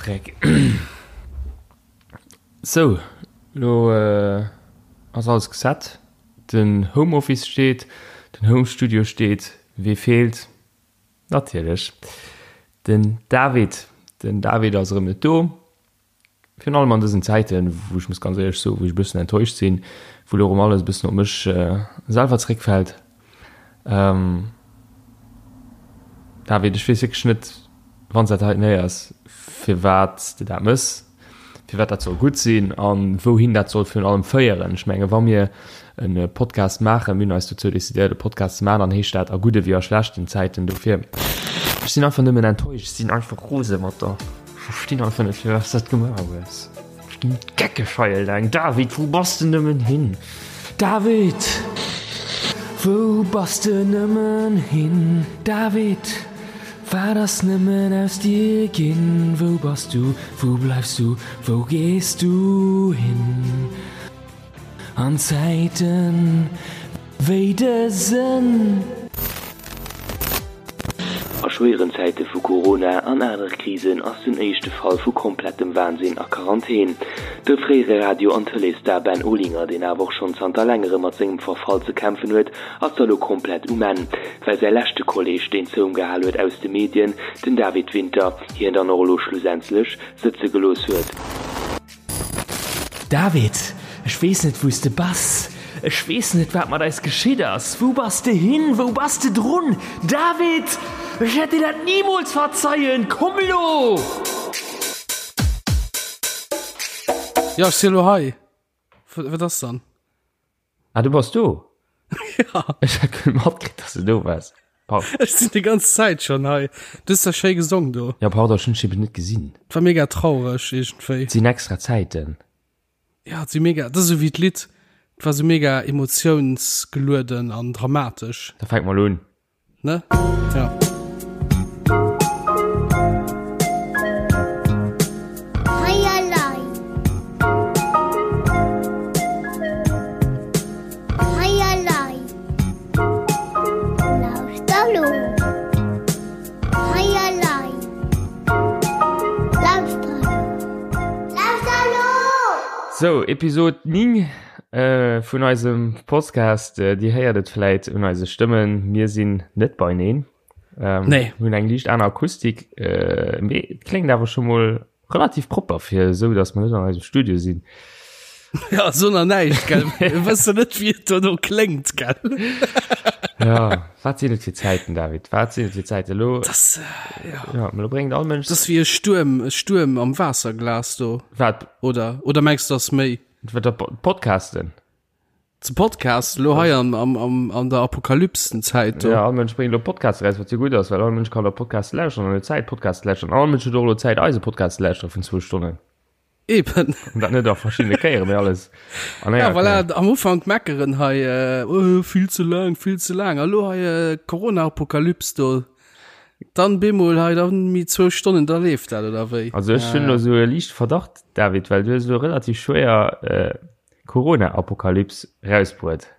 Freck. Sou, lo ass alles geset. Den Home Office steet, den Home Studio steet. Wee feelt? Natierlech den David. Den David ass erëm net do. Virun allem an dësen Zäiten, wou ech muss ganz éierlech soen, wou ech e bëssen enttäuscht sinn, wou elo erëm alles e bëssen op mech selwer zréckfält. David, ech weess wierklech net, wann s dat heiten héiers, firwat s de dat mëss, firwat dat soll gutt sinn a wouhin dat soll virun allem féieren. Ech menge wa mir e Podcast maachen, mir hunn eis dozou decidéiert e Podcast ze maachen, dann heescht dat a gudde wéi a schlechten Zäiten. Dofir, ech sinn einfach nëmmen enttäuscht, ech sinn einfach rose mat der. Verstinn einfach net firwat s dat gemaach hues. Ech ginn geckeg hei eleng. David, wou bass de nëmmen hin? David, wou bass de nëmmen hin? David, wat ass nëmmen aus dir ginn? Wou bass du, wou bleifs du, wou gees du hin? An Zäiten wéi dësen. A schwéieren Zäite vu Corona an anere Krisen ass den éischte Fall vu komplettem Wahnsinn a Quarantän. De fréiere Radio an Tëleesstar Ben Olinger, deen awer och schonn zanter längerem mat sengem Verfall ze kämpfen huet, ass da lo komplett um Enn, well säi leschte Kolleeg, deen zou em gehal huet aus de Medien, den David Winter, hien dann och elo schlussendlech sëtze gelooss huet. David, ech weess net wou s de bass, ech weess net wat mat eis geschitt ass. Wou bass de hin, wou bass de drun? David, ech wäert dir dat nimools verzeien, komm elo! Jo, ech si elo hei. Wat ass dann? Ah, du bass do? Ja. Ech hat guer net matkritt, dass du do waars. Pardon. Ech sinn déi ganz Zäit schon hei. Du hues da schéi gesong do. Ja, pardon, ech hunn dech eben net gesinn. Et war mega traureg iergendwéi. Et sinn extra Zäiten. Ja, et si mega, dat ass esou wéi d'Lidd. Et war esou mega emotiounsgelueden an dramatesch. Da fänke mer elo un. Ne? Ja. Sou, Episod 9 vun eisem Podcast. Dir héiert et vläit un eise Stëmmen, mir sinn net beineen. Nee. Hunn eng liicht aner Akustik, mee et kléngt awer scho mol Relativ propper fir esou, dass mer net an eisem Studio sinn. Ja, so nach näischt, gell? Mir wëssen net, wéi et dono kléngt, gell? Ja, wat sinn et fir Zäiten, David? Wat sinn et fir Zäiten? Elo, Das, äh, ja. ja, elo bréngt all Mënsch. Das ass wéi e Stuerm, e Stuerm am Waasserglas do. Wat? Oder, oder mengs du, das méi? Wat, dat Podcasten? Ze Podcast lo hei am, am, am, an der Apokalypsenzäit do. Ja, all Mënsch bréngt elo Podcasts eraus, wat jo gutt ass, well all Mënsch kann elo Podcasts lauschteren an huet Zäit Podcasts ze lauschteren. All Mënsch huet och elo Zäit eise Podcast ze lauschtere vun zwou Stonnen. Eben. An dat net a verschiddene Kéieren, mee alles an enger Ja, voilà, Kéier. am Ufank meckeren hei, äh, oh, vill ze laang, vill ze laang. A lo hei äh, Corona-Apokalyps do. Dann bemol hei, dann mi zwou Stonnen, da leeft dat, oder wéi? Also ech hunn elo sou e liichte Verdacht, David, well du hues elo relativ schwéier äh, Corona-Apokalyps rausbruet.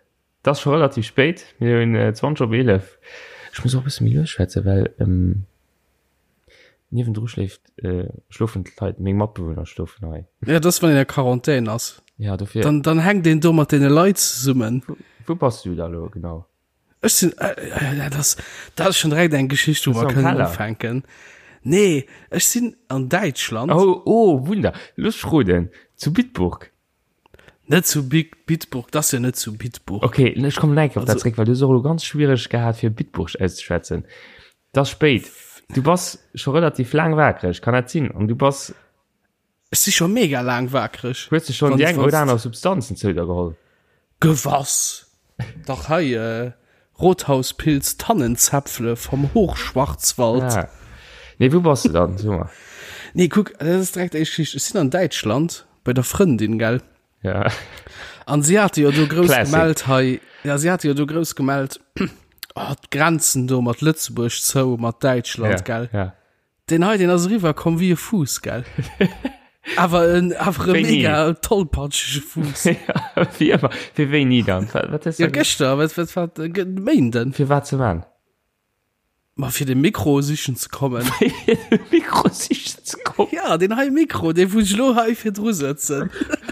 Et ass scho relativ spéit, mir hunn 20 op 11. Ech muss och e bësse méi lues schwätzen, well niewendru schléift, schlofen d'Leit, meng Matbewunner schlofen hei. Ja, dat ass, wann een a Quarantän ass. Ja, dofir. Dann, dann hänkt een do mat deene Leit zesummen. Wou bass du da lo genau? Ech sinn, äh, dat ass, dat ass schon direkt eng Geschicht, wou mer kënnen ufänken. Nee, ech sinn an Däitschland. Oh, oh, Wunder. Looss ech roden. Zu Bitburg. Net zu Bitburg, dat ass jo net zu Bitburg. Okay, ech kommen nach eng Kéier op dat zréck, well du hues och elo ganz schwiereg gehat, fir Bitburg auszeschwätzen. Et ass spéit. Du bass scho relativ laang wakereg, kann dat sinn? An du bass. Ech si scho mega laang wakereg. Hues de schonn déi eng oder aner Substanzen zou der geholl? Gewass! Dach hei, Rothauspilz Tannenzäpfle vom Hochschwarzwald. Ah. Nee, wou bass de dann? So mer. Nee, kuck, dat ass direkt éischt Geschicht. Ech sinn an Däitschland bei der Frëndin, gell? Ja. An si hate jo do grouss Classic. gemellt hei, ja, si hate jo do grouss gemellt, oh, d'Grenzen do mat Lëtzebuerg zou, mat Däitschland, Ja, gell? ja. Deen hei, deen ass eriwwer komm wéi e Fuuss, gell? Awer en, awer e Wéini? mega tollpatschege Fuuss. Ja, wéi ëmmer. Fir wéini dann? Wat, wat hues Ja, du gëschter, wat, wat, wat, Méinden. Fir wat ze man? Ma fir de Mikro sichen ze kommen. Fir de Mikro sichen ze kommen? Ja, den hei Mikro, dee wou ech lo hei virdru sëtzen.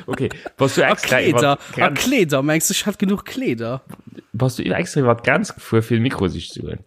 Okay, bass du extra a Kleeder, a Kleeder, mengs du, ech hätt genuch Kleeder? Bass du extra iwwer d'Grenz gefuer, fir de Mikro sichen ze goen?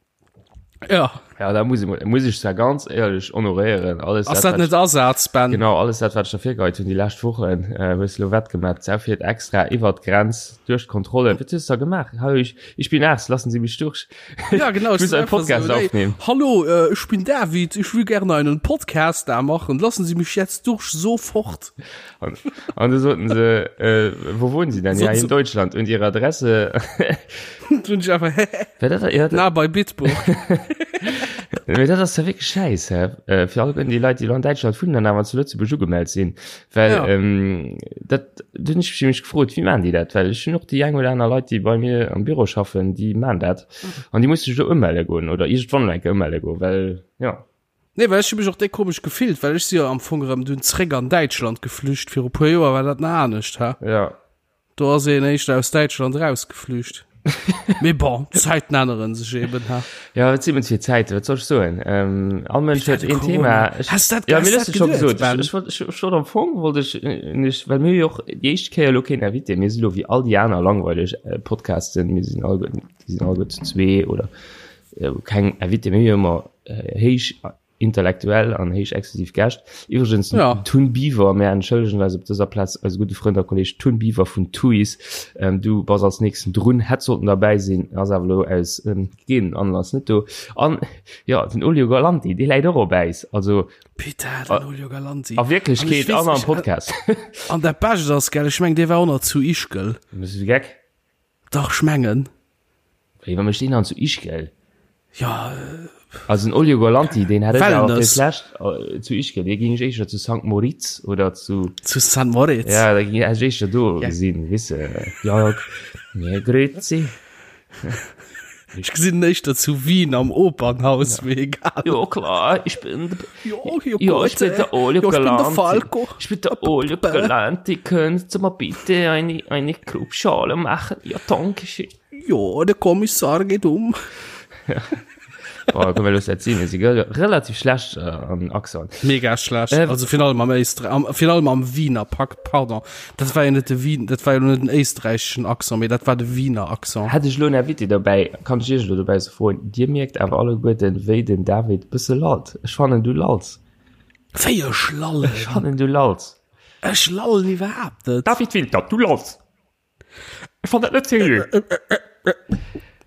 Ja. Ja, da muss ich, muss ich zwar ganz ehrlich honoréieren. Alles, Ass dat, dat net Asaz, Ben? Genau, alles dat, wat ich der virgeheit hunn déi lescht Wochen, äh, hues du lo wettgemaach. D'Sau fiert extra iwwer d'Grenz, duerch d'Kontrollen. Wat hues du da gemaach? Hallo, ich, ich bin Arzt, lassen Sie mich durch. Ja, genau. Ich muss einen Podcast so, aufnehmen. Hallo, äh, ich bin David, ich will gerne einen Podcast da machen. Lassen Sie mich jetzt durch sofort. Und, und da sollten sie, äh, wo wohnen Sie denn? Ja, in Deutschland. Und Ihre Adresse? Und ich einfach, dat, ja, Na, bei Bitburg. Mee dat ass ja wirklich scheiß, hä? Äh, fir all déi Leit, déi lo an Däitschland wunnen an awer zu Lëtzebuerg ugemellt sinn. Well Ja. ähm, dat du hunn ech mech gefrot, wéi maan déi dat? Well ech hunn och déi eng oder aner Leit, déi bei mir am Büro schaffen, déi maan dat. An déi musse sech lo ëmelle goen oder iergendwann elo eng Kéier ëmelle goen, well ja. Nee, well ech hu mech och déck komesch gefillt, well ech si jo am Fong erëm dunn zréck an Däitschland geflücht. Viru puer Joer war dat nach anescht, hä? Ja. Do ass een éischter aus Däitschland erausgeflücht. Mee bon, d'Zäiten änneren sech eben, hä? Ja, wat si mens fir Zäiten, wat soll ech soen? Ähm, all Mënsch huet een Thema. Ech, Has dat, ja, has mir dat hues de scho geduet, gesot. Ben? Ech, ech wollt, ech, ech wollt am Fong wollt ech nech, well mir hu jo och déi éischt Kéier elo keen Invité. Mir si lo wéi all déi aner langweileg äh, Podcasten. Mir sinn all, déi sinn alleguer zu zwee oder äh, keng Invité. Mir hu jo ëmmer äh, héich intellektuell an héich exklusiv Gäscht. Iwwregens Ja. Tun Biwer, mär entschëllegen eis op dëser Plaz eise gudde Frënd a Kolleg Tun Biwer vun Tuis. Ähm, du bass als nächsten drun, hätt sollten derbäi sinn, ass awer elo aus ähm, gegebenenen Anlass net do. An ja, den Olio Galanti, dee läit och op Äis. Also Putain, den Olio Galanti. a Wierklechkeet An ech an am weess, Podcast. An dat Bescht ass, gell, ech meng, dee war och nach zu Ischgl. Bist du geck? Dach, ech mengen. Wéi, wa mécht deen dann zu Ischgl? Ja, Also den Olio Galanti, deen hätt ech awer fir Wellness. d'lescht äh, zu Ischgl, dee géing ech éischter zu Sankt Moritz oder zu, zu St. Moritz. ja, da géing ech éischter do Ja. gesinn, weess de. Ja, ja, grüezi. Ech gesinn en éischter zu Wien am Opernhaus, mee egal. Jo, klar, ich bin, Jo, jo, ja, ich bin der Olio Jo, ich bin der Galanti. Falco. Ich bin der Olio Galanti, können Sie mir bitte eine, eine Grubschale machen? Ja, danke schön. Jo, de Kommissar geet um. Boah, komm, wir lassen das sehen. Wir sind relativ schlecht äh, am Accent. Mega schlecht. Äh, also virun allem am Éistre am, virun allem am Wiener Pack, pardon. Dat war jo net de Wien, dat war jo net den éisträicheschen Accent, mee dat war de Wiener Accent. Hätt ech lo en Invité dobäi, kann ech iech lo dobäi se froen, Dir mierkt awer alleguerten, wéi den David bësse lallt. Ech fannen, du lalls. Wéi ech lallen? Ech fannen, du lalls. Ech lallen iwwerhaapt net. David Winter, du lalls. Ech fand dat net seriö.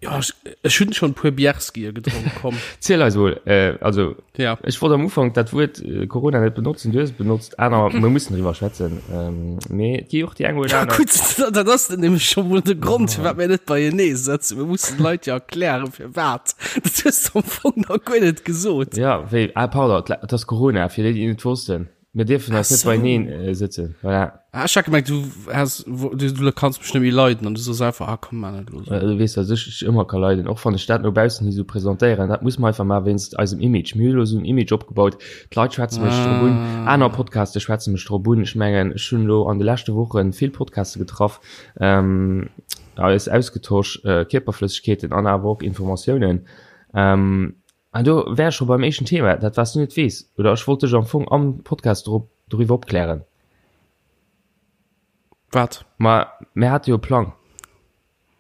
Ja, ech, ech hunn schon puer Bierskier gedronk, komm. Ziel eis mol, äh, also Ja. ech wollt am Ufank dat Wuert äh, Corona net benotzen, du hues et benotzt, aner mir mussen driwwer schwätzen. Ähm, mee et gi och déi eng oder Ja, aner. gutt, dat ass dann nämlech schon mol de Grond, firwat mir net beienee sëtzen. Mir mussen d'Leit ja erklären, firwat. Dat hues du am Fong nach guer net gesot. Ja, wéi, ah, pardon, et ass Corona, fir déi, déi et net wossten. Mir dierfen eis net so. beieneen äh, sëtzen. Voilà. Ah, ech hat gemengt, du has, wo, du, du kanns mech net méi leiden an du soos einfach, ah komm, man net los. Äh, Du weess, dass ech dech ëmmer ka leiden, och wann ech dat no baussen hi sou presentéieren. Dat muss mer einfach maachen wéinst eisem Image. Mir hu lo sou en Image opgebaut, d'Leit schwätze mech drop un, aner Podcaste schwätze mech drop un. Ech mengen, ech hunn elo an de leschte Woche vill Podcaste getraff, ähm, eis ausgetosch, äh, Kierperflëssegkeeten an awer och Informatiounen. Ähm, An do wär ech scho beim éischten Thema, dat wat s du net weess, oder ech wollt dech am Fong am Podcast drop, doriwwer opklären. Wat? Ma mir hate jo e Plang.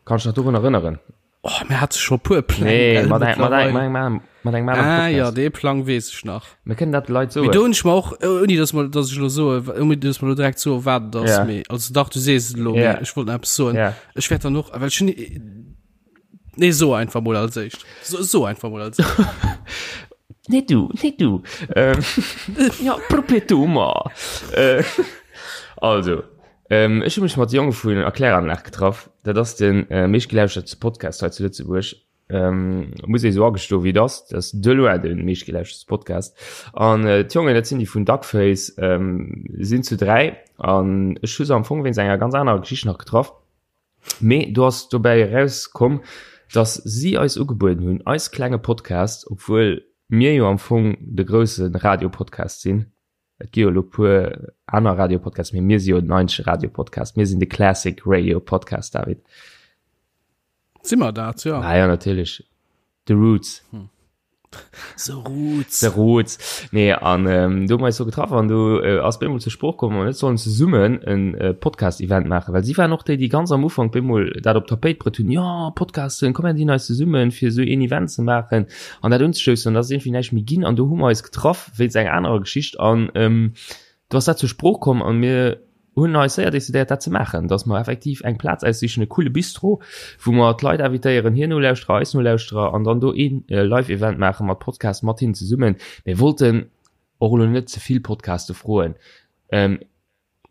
Kanns dech nach dorun erënneren? Oh, mir hate scho puer Pläng, Nee, gell, mat eng, mat eng, mittlerweile. mat engem aneren, mat engem aneren Ah ja, Podcast. dee Plang weess ech nach. Mir kënnen dat de Leit Mee do soen. hunn ech mer och, ouni dass mer, dass ech elo soe, ouni dass mer elo direkt soe wat et ass, Ja. mee, also dach, du sees et elo, mee Ja. ech wollt nach eppes soen. Ja. Ech wäert dann och, well ech hunn, Nee, so einfach mol als éischt. So, so einfach mol als éischt. Nee du, nee du. Ähm, ja, probier du mal. Äh, also, ähm, ech hu mech mat Jonge vun Erkläranlag getraff. Dat ass den äh, meeschtgelauschtertste Podcast hei zu Lëtzebuerg. Ähm, muss ee sou agestoen, wéi et ass. Dat ass de loin de meeschtgelauschtertste Podcast. An äh, d'Jongen, dat sinn déi vun Duckface, ähm, sinn zu dräi. An ech hu se am Fong wéinst enger ganz anerer Geschicht nach getraff. Mee do ass dobäi erauskomm, dass si eis ugebueden hunn, eis klenge Podcast, obwuel mir jo am Fong de grousse Radiopodcast sinn, et gi jo elo puer aner Radiopodcasts, mee mir si jo den eenzege Radiopodcast, mir sinn de Classic Radio Podcast, David. Si mer dat, jo? Ah jo, natierlech, The Roots. The Roots. The Roots. Nee, an ähm, do hu mer eis do getraff an do äh, ass bemol zur Sprooch komm, mer net sollen zesummen en äh, Podcast-Event maachen, well si waren och déi, déi ganz am Ufank bemol dat op d'Tapéit bruet hunn, ja, Podcasten, komm mir dinn eis zesummen, fir esou een Event ze maachen an dat unzestoussen. An da ass iergendwéi näischt méi ginn an do hu mer eis getraff wéinst enger anerer Geschicht an ähm, do ass dat zur Sprooch komm an mir hunn eis séier decidéiert dat ze maachen, dass mer effektiv eng Plaz aussichen, e coole Bistro, wou mer d'Leit invitéieren, hir Nolauschterer, eis Nolauschterer an dann do een Live-Event maache mat Podcast mat hinnen zesummen. Mir wollten och elo net ze vill Podcaste froen, ähm,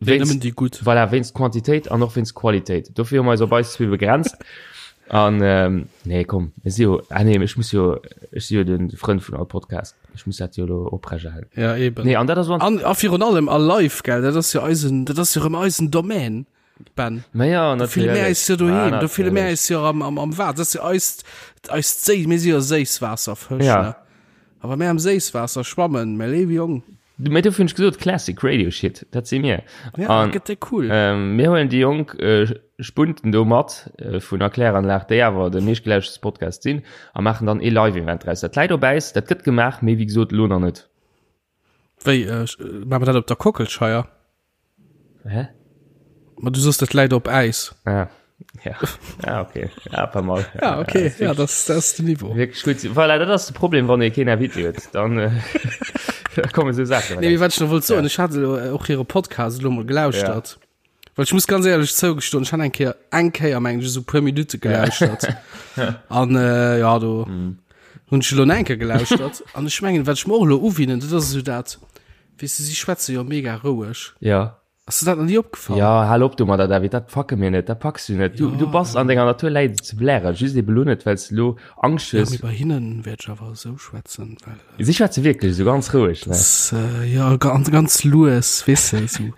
wéinst, nëmmen déi gutt. Voilà, wéinst Quantitéit an och wéinst Qualitéit. Dofir hu mer eis op eis zwee begrenzt. An ähm, nee, komm, mir si jo, ah nee, ech muss jo, ech si jo de Frënd vun all Podcast. Ech muss dat jo elo oprechterhalen. Ja, eben. Nee, an dat ass An, a virun allem a live, gell, dat ass jo eisen, dat ass jo rëm eisen Domaine, Ben. Ma ja, Do fille mir eis jo doheem, do fille mir eis jo am, am, am Waasser. Dat ass jo eist, eist Séi, mir si jo Séisswaasserfësch, Ja. ne? A wa mir am Séisswaasser schwammen, mä léiwe Jong. Mee dofir hunn ech gesot, Classic Radio Shit, dat si mir. Ja, dat gëtt déi cool. Ähm, mir huelen déi jonk äh, Spunten do mat äh, vun der Kläranlag, déi awer de meeschtgelauschtertste Podcast sinn, a maachen dann ee Live-Event draus. Dat läit op Äis, dat gëtt gemaach, mee wéi gesot, elo nach net. Wéi, äh, maache mer dat op der Kockelscheier? Hä? Ma du soss dat läit op Äis. Ah, ja. Ah, okay. Ja, pas mal. Ja, okay. Ja, das, das ist den Niveau. Wirklich gut. Voilà, dat ass de Problem, wann ee keen Invité huet. Dann äh, da komme sou Saachen. Nee, wat ich noch wollt soen, ich hatte lo, äh, och hire Podcast lo mol gelauschtert. Ja. Well ich muss ganz ehrlech zougestoen, ich han eng Kéier, eng Kéier meng ich, so puer Minute gelauschtert. An äh, ja, do mm. hunn ich lo eng Kéier gelauschtert. An ich mengen, wat ich mir och lo uwinnen, dat ass so dat, Weess de, si schwätze jo mega roueg. Ja. Ass der dat nach ni opgefall? Ja, hal op domadder, David, dat packe mir net, dat packs du net. Du, ja. du bass an denger Natur läit et ze blären, just ebe lo net, well s du lo Angscht Ja, hues. mee bei hinnen wäert ech awer esou schwätzen, well. Äh, Si schwätze wierklech esou ganz roueg, ne? Das, äh, ja, ganz, ganz lues, weess de, esou.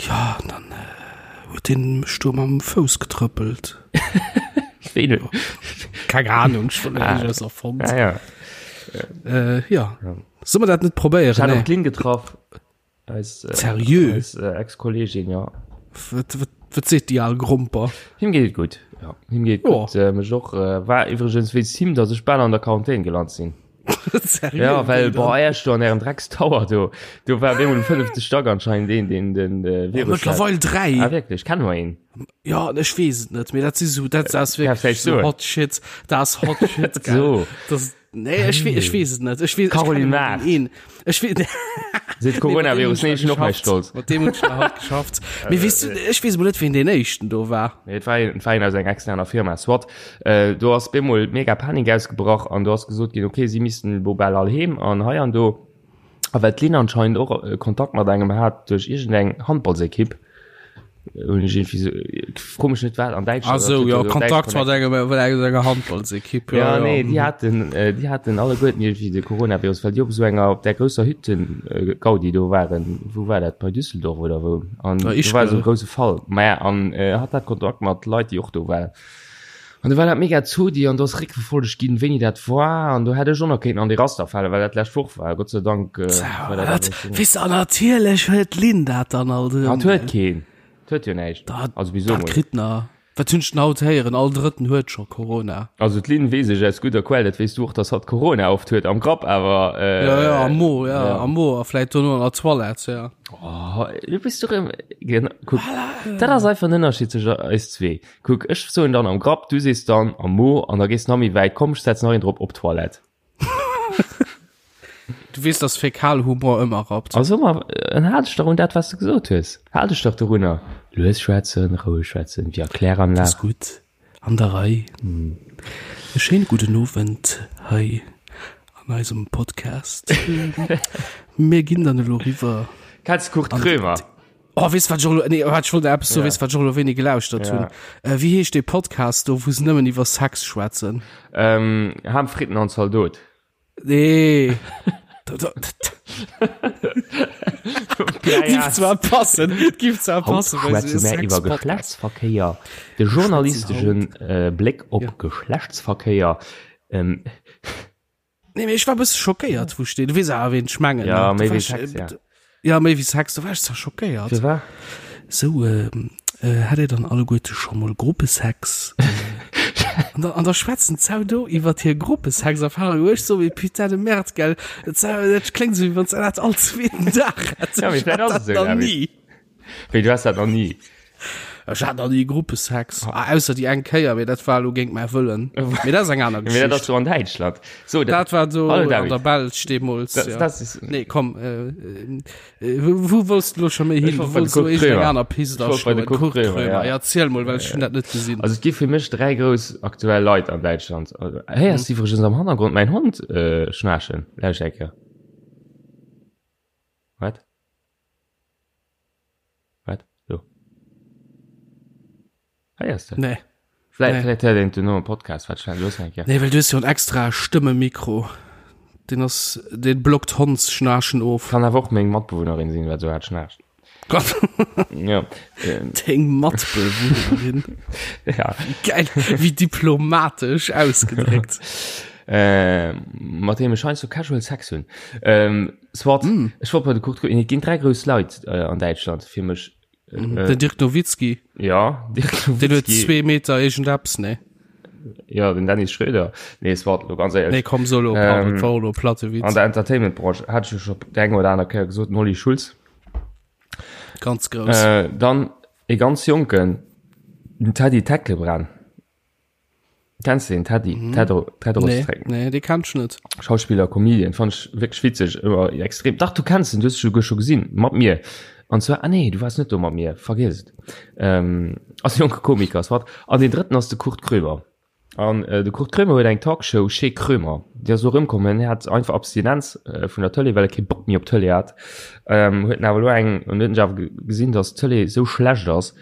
Ja, an dann äh, huet deen mech do mam Fouss getrëppelt. Wéi du? Keng Ahnung, ech wollt ah. net erfonnt. Ah, ja. Äh, ja. ja. Soll man dat net probéieren? Ech hat och d'Lynn getraff. Eis, äh, Seriö? Eis äh, Ex-Kollegin, ja. Wat, wat, wat seet déi al Gromper? Him geet et gutt. Ja, him geet oh. gutt. Äh, mech och äh, war iwwregens wéinst him, datt ech bal an der Quarantän gelant sinn. Seriö? Ja, well boah, erst do an ärem Dreckstower do, do war bemol um fënnefte Stack anscheinend een, deen den äh, Virus hat. Mëttlerweil 3. Ah, wirklich? Kennen wir ihn? Ja, ech weess et net, mee dat si so, dat ass Ja, wirklich vielleicht so so. hot shit. Dat ass hot shit, gell. So. Das, nee, ech, we ech weess et net. Ech weess, ech Caroline kenne Mart. een. Ech weess, Seet Coronavirus, nee, ech hunn och mäi Stolz. Mat deem hunn ech nach haut geschafft. Mee weess du, ech weess mol net, wien deen éischten do war. Nee, et war een, et war een aus enger externer Firma. Soit, äh, do ass bemol mega Panik ausgebrach an do ass gesot ginn, okay, si missten elo bal all heem an hei an do. A well d'Lynn anscheinend och äh, Kontakt mat engem hat duerch iergendeng Handballsekipp, hunn ech irgendwie so, fro mech net wat, an Däitschland. Ah sou, dat huet jo, jo so Kontakt Däitsch mat engem, mat enger Handballsekipp, Ja, ja, ja. nee, déi haten, äh, déi haten alleguerten irgendwie de Coronavirus, well déi op esou enger, op där grousser Hütten, äh, Gaudi do waren. Wou war dat? Bei Düsseldorf oder wou? An Ja, do war esou Ischgl. e grouse Fall. Maja, an äh, hat dat Kontakt mat Leit, déi och do waren. An do war dat mega Zodi an do ass réckverfollegt ginn, wéini dat war. An do hätt ech och nach kéinten an dee Raster falen, well dat d'lescht Woch war. Gott sei Dank äh, war dat Wat? awer schon. Weess de, an natierlech huet d'Lynn dat dann alt erëm, Hat huet gell? keen. Et huet jo näischt. Dat, Also wieso dat mol? kritt na. Wat hunn ech denn haut héieren? All Drëtten huet scho Corona. Also d'Lynn weess ech aus gudder Quell, dat weess du och, dass hatt Corona oft huet am Grapp, awer äh, Ja, ja, am Mo, ja, ja. am Mo a vläit dono an der Toilette, ja. Oh, du bist doch im, genau, kuck, dat ass einfach den Ënnerscheed zwëschen eis zwee. Kuck, ech soen dann am Grapp, du sees dann am Mo an da gees nach méi wäit, komm, ech setzen nach een drop, op d'Toilette. Du weess, dass Fäkalhumor ëmmer rappt. Also ma, dann hal dech dach un dat, wat s de gesot hues. Hal dech dach dorunner. Lues schwätzen, roueg schwätzen, wéi a Kläranlag. Ass gutt, an der Rei. E schéine gudden Owend hei an eisem Podcast. Mir ginn dann elo riwwer. Kenns de Kurt Krömer? Oh, weess wat ech och elo, nee, wat ech wollt eppes soen, weess wat ech och elo wéini gelauschtert hunn? Äh, wéi heescht dee Podcast do, wou se nëmmen iwwer Sex schwätzen? Ähm, Ham, Fritten an Zaldot. Nee. Giff zwar passen, giff zwar passen, Haut schwätze mär iwwer Geschlechtsverkéier, de journalisteschen äh, Bléck op ja. Geschlechtsverkéier. Ähm, Nee, mee ech war e bësse schockéiert, wou ech deen, du weess awer, ween ech mengen, Ja, ne? méi Da war wéi ech, Sex, ja. Ja, méi wéi Sex, da war ech zwar schockéiert. Fir wat? Sou, ähm, äh, hat Dir dann alleguerte scho mol Gruppesex? An da, an da schwätzen d'Sau do iwwer hir Gruppesexerfahrung, wou ech so, mee putain de merde, gell, dat, dat kléngt esou, wéi wann s de dat all zweeten Dag hätt. Ja, mee Ech vläicht hat ass et dat esou, nach David. ni. Wéi, du has dat nach ni? Ech hat nach ni Gruppesex. Ah, ausser déi eng Kéier, mee dat war elo géint mäi Wëllen. Mee dat ass eng aner Mee dat ass Geschicht. do an Däitschland. So, Dat war do Hallo, an David. der Belsch deemools, Das, ja. das ist, Nee, komm, äh, äh, wou, wou wollts du lo scho méi Ech hin? wollt Du bei de wollts lo Kurt iergendeng Krömer. aner Pist Ech wollt bei de aschloen. Kurt Kurt Krömer, Krömer. ja. Ja, erziel mol, well ech hunn dat net gesinn. Also et gi fir mech 3 grouss aktuell Leit an Däitschland. Also, héiers du iwwregens am Hannergrond mäin Hond äh, schnaarchen? Lauscht eng Kéier. Wat? Wat? Do. Héiers de? Nee. Vläicht, Nee. vläicht héiert een et duerno am Podcast. Wat schnell, looss eng Kéier. Nee, well du hues jo en extra Stëmmemikro. Deen ass, deen blockt Hondsschnaarchen of. Kann awer och meng Matbewunnerin sinn, wat esou haart schnaarcht. Gott. Ja. Ähm, Deng Matbewunnerin. ja. Geil, wéi diplomatesch ausgedréckt. Äh, mat deem ech heiansdo casual Sex hunn. Ähm, soit, mm. ech wollt bei de Kurt Krömer, et ginn 3 grouss Leit äh, an Däitschland fir mech. Äh, Den Dirk Nowitzki. Ja, Dirk Nowitzki. Den huet 2 Meter iergendeppes, ne? Ja, den Dennis Schröder. Nee, es war lo ganz éierlech. Nee, komm, solo, pardon, ähm, war lo platte Witz. An der Entertainment-Branche hat ech jo scho déi eng oder aner Kéier gesot, den Olli Schulz. Ganz grouss. Äh, dann e ganz jonken, den Teddy Tecklebrand. Kennst du den Teddy? Mhm. Tedro, Tedros nee, nee, dee kenn ech net. Schauspieler, Comedian, fand ich wirklich witzig, immer extrem. Dach, du kennst den, du hast sogar schon gesehen, mat mir. Und zwar, ah nee, du warst net do mat mir, vergiss et. Ähm, ass e jonke Komiker, soit. An den drëtten ass de Kurt Krömer. An äh, de Kurt Krömer huet eng Talkshow, Chez Krömer. Déi ass elo erëmkomm, en hat einfach Abstinenz äh, vun der Tëlee, well e kee Bock méi op Tëlee hat. Ähm, huet en awer elo eng, an huet en awer gesinn, dass d'Tëlee sou schlecht ass,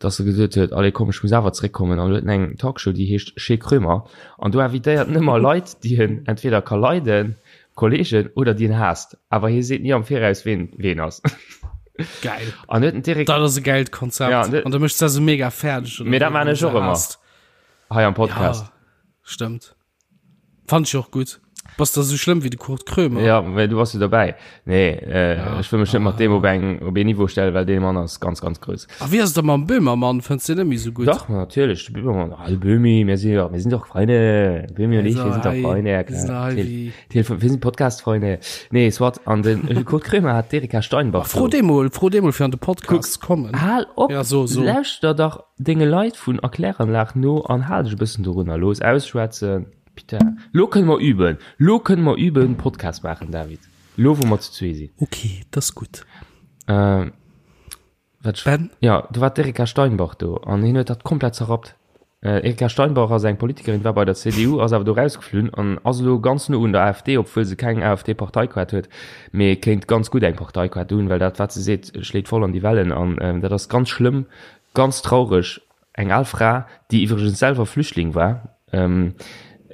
dass e gesot huet, allez komm, ech muss awer zréckkommen an huet en eng Talkshow, déi heescht Chez Krömer an do invitéiert en ëmmer Leit, déi en entweder ka leiden, Kollegen, oder déi en haasst, awer hie seet ni am Viraus, ween ween ass. Geil. An huet en direkt. Dat ass e gäilt Konzept. Ja, an An da méchs de se mega fäerdeg, oder Mee dat wéi, maan wann ech se och ëmmer haasst. hei am Podcast. Ja, stëmmt. Fand ech och gutt. Bass da sou schlëmm wéi de Kurt Krömer? Ja, well du bass jo dobäi. Nee, äh, ja. ech wëll mech net mat deem op eng op een Niveau stellen, well dee Mann ass ganz ganz grouss. A wéi ass et da mam Böhmermann? Fënns de net méi sou gutt? Dach, natierlech, de Böhmermann. Ah, de Böhmi, mir si jo, mir sinn doch Freunde. Böhmi und ich, wir sind doch Freunde, ja klar. Telefon, wir sind Podcast-Freunde. Nee, soit, an den Kurt Krömer hat d'Erika Steinbach. Fro dee mol, fro dee mol fir an de Podcast ze kommen. Hal op, ja, so, so. lauschter dach denge Leit vun Erkläranlag no an hal dech e bëssen dorunner. Looss ausschwätzen. Putain, lo kënne mer üben. Lo kënne mer üben, Podcast maachen, David. Lo, wou mer zu zwee sinn. Okay, dat ass gutt. Äh, wat Ben? Ja, do war d'Erika Steinbach do an hien huet dat komplett zerrappt. Äh, Erika Steinbach ass eng Politikerin, war bei der CDU, ass awer do rausgeflunn an ass elo ganz no un der AfD, obwuel se keng AfD-Parteikaart huet, mee kéint ganz gutt eng Parteikaart hunn, well dat, wat se seet, schléit voll an déi Wellen an äh, dat ass ganz schlëmm, ganz traureg. Eng al Fra, déi iwwregens selwer Flüchtling war,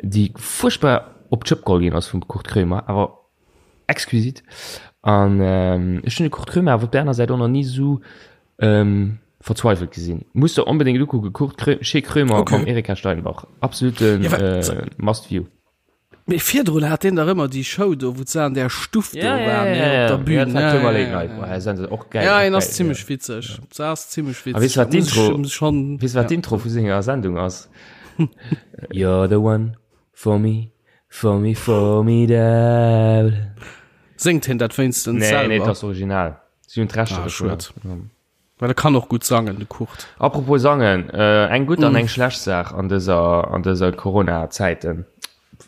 déi fuerchtbar op d'Schëpp geholl ginn ass vum Kurt Krömer, awer exquisit. An ech hunn de Kurt Krömer awer op där aner Säit och nach ni esou verzweifelt gesinn. Muss der onbedéngt ukucken, Kurt Krö, Chez Krömer mam Erika Steinbach. Absolute must view. Mee virdrun hat deen dach ëmmer déi Show do, wou se an där Stuff do Ja, ja, waren, ja, ne, ja, op ja. der Bühn. Ja, dat war Ja, Krömer ja, Late ja, Night. ja. Boah, das ist och geil, Ja, och en ass geil, zimmlech ja. witzeg. Se ass zimmlech A weess witzeg. du, wat Da muss ech d'Intro, em schon, weess du, wat ja. d'Intro vu senger Sendung ass? You're the one for me, for me formidable. Séngt hien dat wéinstens Nee, nee, selwer? dat ass original. Si hunn d'Rechter Ah, dovunner. schued. Well e kann och gutt sangen, de Kurt. Apropos sangen, eng gutt an eng schlecht Saach an dëser, an dëser Corona-Zäiten,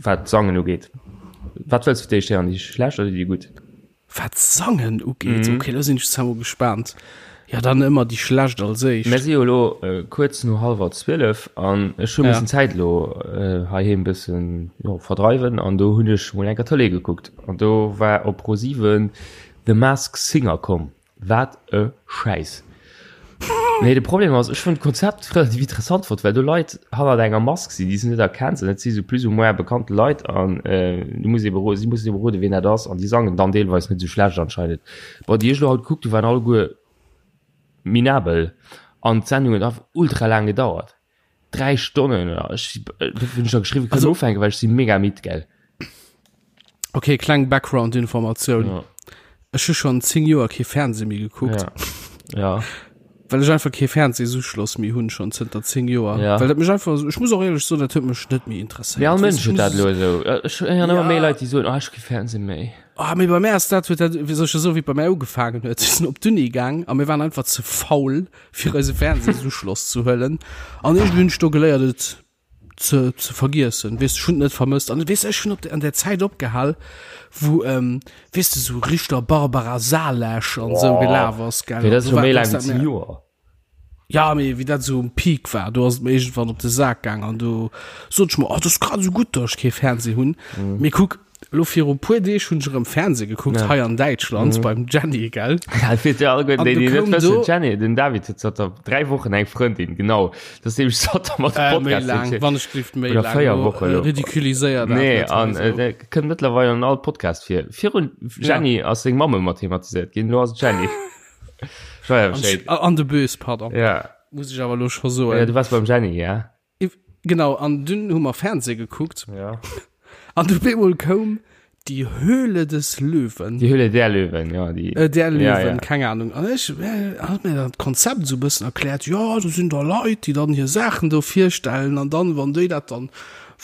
wat d'Sangen ugeet. Wat wëlls du fir d'éischt héieren, déi schlecht oder déi gutt? Wat d'Sangen ugeet? Ok, lo sinn ech zwar mol gespaant. Jo, dann ëmmer déi schlecht als éischt. Mir si jo elo kuerz no hallwer 12 an ech hu missen d'Zäit elo heiheem bëssen, jo, verdreiwen an do hunn ech mol eng Kéier Tëlee gekuckt an do war op Pro7 The Mask Singer komm. Wat e Schäiss. Nee, de Problem ass, ech hunn d'Konzept relativ interessant fonnt, well do Leit hannert enger Mask sinn, déi s de net erkenns an dat si sou plus ou moins bekannte Leit an du muss ebe ro si mussen ebe roden, wien dat ass an déi sangen dann deelweis net sou schlecht anscheinend. Bon, déi ech elo haut gekuckt hu waren alleguer minabel an d'Sendung huet einfach ultra laang gedauert. 3 Stonnen oder ech hunn scho geschriwwen, kënnen ufänken, well ech si mega midd, gell. Okay, kleng Background-Informatioun. Ja. Ech hu schonn 10 Joer kee Fernseh méi gekuckt. Ja. Ja. Well ech einfach kee Fernsehsuschloss méi hunn, schonn zënter 10 Joer. Ja. Well dat mech einfach, ech muss och éierlech soen, dat huet mech net méi interesséiert. Mee all Weess Mënsch du, huet dat ech muss- elo esou. Ech héieren ëmmer Ja. méi Leit, déi soen, oh, ech hu kee Fernseh méi. Ah, mee bei mär ass dat, huet dat, wéi soll ech soen, wéi et bei mär ugefaangen huet. Ech sinn op d'Uni gaang a mir waren einfach ze faul, fir eise Fernsehsuschloss ze huelen. An iergendwéi hunn ech do geléiert, et ze, ze vergiessen. Weess, ech hunn et net vermësst. An weess, ech hunn op de, an der Zäit opgehal, wou, ähm, weess de, sou Richter Barbara Salesch an sou gelaf ass, gell. Mee dat ass Do scho war- méi do laang ass wéi dat 10 mir- Joer. Ja, mee wéi dat sou um Peak war, do ass et mir iergendwann op de Sak gaang an do sot ech mer, oh, dat ass grad esou gutt, datt ech kee Fernseh hunn. Mee kuck, Elo viru puer Deeg hunn ech erëm Fernseh gekuckt, Ja. hei an Däitschland beim Jenny, gell? Ja, fir déi alleguerten, An déi, du déi net koum wëssen, do- Jenny, den David huet zanter 3 Wochen eng Frëndin, genau. Dat ass nämlech zanter mer de Äh, méi Podcast laang, hunn. wann ech gelift méi Oder laang. 4 Lo, Wochen äh, elo. Ridiculiséier dat Nee, net an hei äh, sou. der kënnt mëttlerweil an all Podcast vir. Virun Jenny ass seng Mamm ëmmer thematiséiert ginn, elo ass et Jenny. Ech war ja An, Bescheid. an de Bös, pardon. Ja. Muss ech awer elo scho soen. Ja, du wars beim Jenny, ja? Genau, an dunn hu mer Fernseh gekuckt. Ja. An du bemol koum Die Höhle des Löwen. Die Höhle der Löwen, ja. Die, äh, der Löwen, ja, ja. keine Ahnung. An ech äh, hat mir dat Konzept so bëssen erkläert. Ja, do sinn da Leit, déi dann hir Saachen do virstellen an dann, wann déi dat dann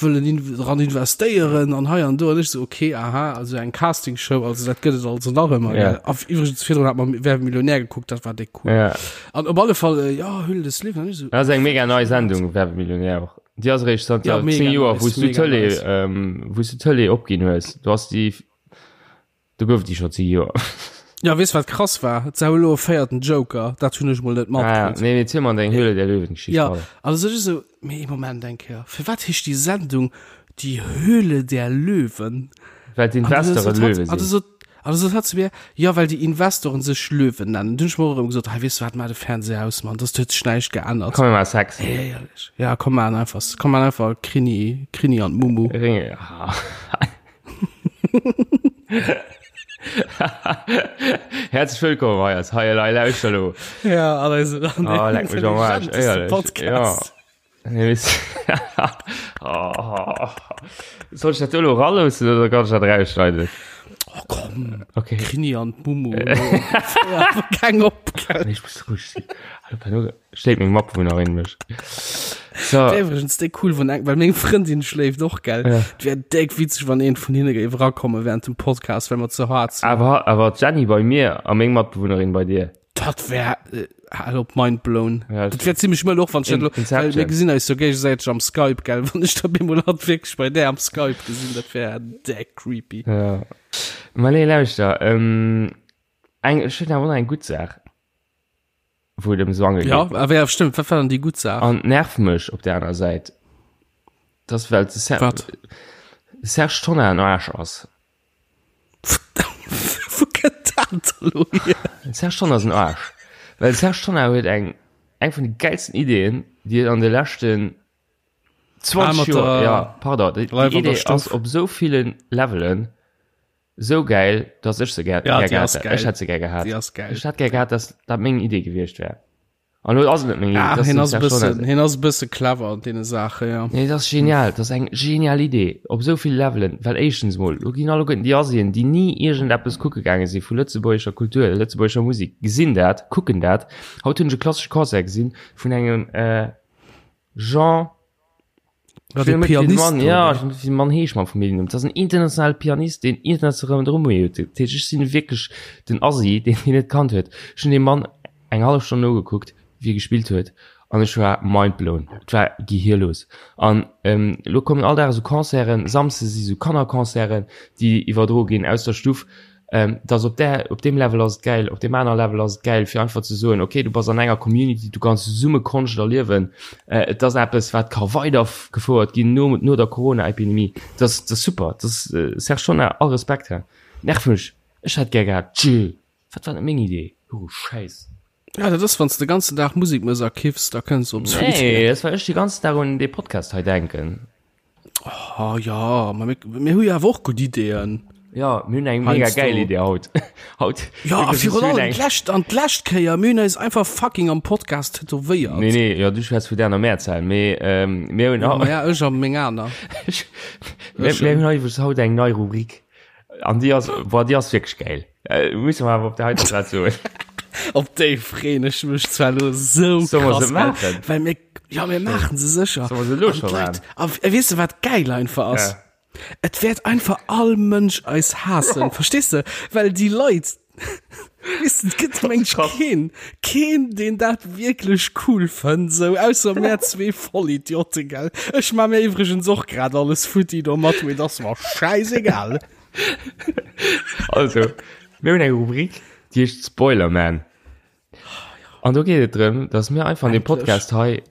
wëllen in, dran investéieren an hei an do. An ech so, okay, aha, also eng Castingshow, also dat gëtt et also nach ëmmer. Ja. gell. A iwwregens virdrun hat mer Wer wird Millionär gekuckt, dat war déck cool. Ja. An op alle Fall, äh, ja, Höhle des Löwen. An ech so, Dat ass eng mega nei Sendung, Wer wird Millionär och. Déi ass eréischt zanter Ja, mega 10 Joer, nice, wou s du mega d'Tëlee, nice. ähm, wou s du d'Tëlee opginn hues. Du hast déi, do gouf déi scho 10 Joer. Ja, weess wat krass war? Et sou elo e véierten Joker, dat hunn ech mol net Ah, ja. matkritt. Nee, mee ziel mer deng Höhle der Löwen-Geschicht Ja, weider. also ech esou, mee ee Moment eng Kéier, firwat heescht déi Sendung Die Höhle der Löwen? Well d'Investoren Löwe An du sinn. sot, an du sot hatt zu mir, ja, well déi Investoren sech Löwen nennen. Dunn hunn ech mer och erëm gesot, hei, weess du wat, maach de Fernseher aus, Mann, dass huet sech näischt geännert. Komm, mir maache Sex. Éierlech. Ja, komm, maachen einfach, komm, maachen einfach Krini, Krini an d'Mumu. Ringe, ah. Herzlich willkommen hei als Hei Elei Lauschter elo. Ja, an eisem an Oh, leck mech am Arsch, intelligenteste éierlech. Podcast. Ja. Nee, weess- oh. Soll ich dat elo raloossen oder kann ich dat rausschneiden? Oh, komm. Okay. Krini an d'Mumu. Keng op. gell? Nee, ich muss ruhig sinn. Hallo, Pano, schléit meng Matbewunnerin mech. So. Iwwregens déck cool, wann eng, well meng Frëndin schléift och, gell? Ja. Et wär déck witzeg, wann een vun hinne géif erakomme während dem Podcast, well mer ze hart sinn. Awer, awer d'Jenny bei mir a meng Matbewunnerin bei dir. Dat wär, äh, hal op, mind blown. Ja, Dat wär zimmlech mëll och, wann ech dat In- elo, well Inception. mir gesinn eis jo géigesäiteg am Skype, gell? Wann ech da bemol hatt wierklech bei där am Skype gesinn, dat wär déck creepy. Ja. Ma nee, lauschter, ähm, eng, ech hunn awer och nach eng gutt Saach. Wou et ëm Swange Ja, geet. awer ja, stimmt, wat war dann déi gutt Saach? An nervt mech op der aner Säit, dass well de Ser Wat? Serge Tonnar en Aarsch ass. Wou kënnt dat elo hier? Den Serge Tonnar ass en Aarsch. Well de Serge Tonnar huet eng eng vun de gäilsten Ideeën, déi et an de leschten 20 Ah, mat Joer, der ja, pardon, déi, déi Live an der Idee ass Stuff. op esou ville Levelen esou gäil, dass ech se gär, Ja, gär déi gehat ass hätt. geil. Ech hätt se gär gehat. Déi ass geil. Ech hätt gär gehat, dass dat meng Idee gewiescht wär. An lo ass et net meng Idee, Ah, dat ass hien dem ass e Serge Tonnar bëssen, seng. hien ass e bësse clever an deene Saachen, ja. Nee, dat ass genial, dat ass eng genial Idee op esou ville Levelen, well éischtens mol, lo ginn alleguerten déi Asien, déi ni iergendeppes kucke gaange si vu lëtzebuergescher Kultur, lëtzebuergescher Musek, gesinn dat, kucken dat. Haut hunn ech e klassesche Concert gesinn vun engem Jean, Ja, ech weess de net wéi de Pianist, Mann, ja, oder? ech weess net wéi de Mann heescht mam Familljennumm. Dat ass en internationale Pianist, deen international Renommée huet. Dat heescht, ech sinn wierklech den Asi, deen hien net kannt huet. Ech hunn deem Mann eng hallef Stonn nogekuckt, wéi e gespillt huet, an ech war mindblown. Et war gehirlos. An elo kommen all Dag esou Concerten, Samsdes si sou Kannerconcerten, déi iwwerdroe ginn aus der Stuff. Dass op där, op deem Level ass et gäil, op deem aner Level ass et gäil, fir einfach ze soen, okay, du bass an enger Community, du kanns zesumme Konscht erliewen. Et ass eppes, wat ka weidergefouert ginn no, no der Corona-Epidemie. Dat ass, dat ass super. Dat ass, Serge Tonnar, all Respekt, hä. Nerv mech. Ech hätt gär gehat, tjö, wat war net meng Idee? Oh, Schäiss. Ja, dat ass, wann s de ganzen Dag Musek mëss a kiffs, da kënns du op esou Nee, Ideeën. dat well ech de ganzen Dag un dee Podcast hei denken. Oh ja, ma mir, mir hu jo awer och gutt Ideeën. Ja, mir hunn eng mega Heiansdo. gäil Idee haut. Haut. Ja, a Wirklich, virun mir hunn allem eng- d'lescht, an d'lescht Kéier, mir hunn eis einfach fucking am Podcast tätowéiert. Nee, nee, ja, du schwätz vu der Mehrzahl. Mee, ähm, mir hunn Ja, haut, ma ja, ech a meng aner. mir, mir hunn iwwregens haut eng nei Rubrik. An déi ass, boah, déi ass wierklech gäil. Äh, musse mer awer op der heiter Plaz soen. Op déi freen ech mech zwar lo sou Soll mer krass, se gell? maachen? Well mir, ja, mir maachen se sécher. Soll mer se elo An scho d'Leit, maachen? a weess de wat geil einfach ass? Ja. Et wäert einfach all Mënsch eis haassen, verstees de? Well déi Leit, weess de, et gëtt meng ech keen, keen, deen dat wierklech cool fënnt, sou, ausser mär zwee Vollidioten, gell? Ech maa mir iwwregens och grad alles futti domat, mee et ass mer schäisegal. Also, mir hunn eng Rubrik, déi heescht Spoilerman. An do geet et drëm, dass mir einfach an deem Podcast hei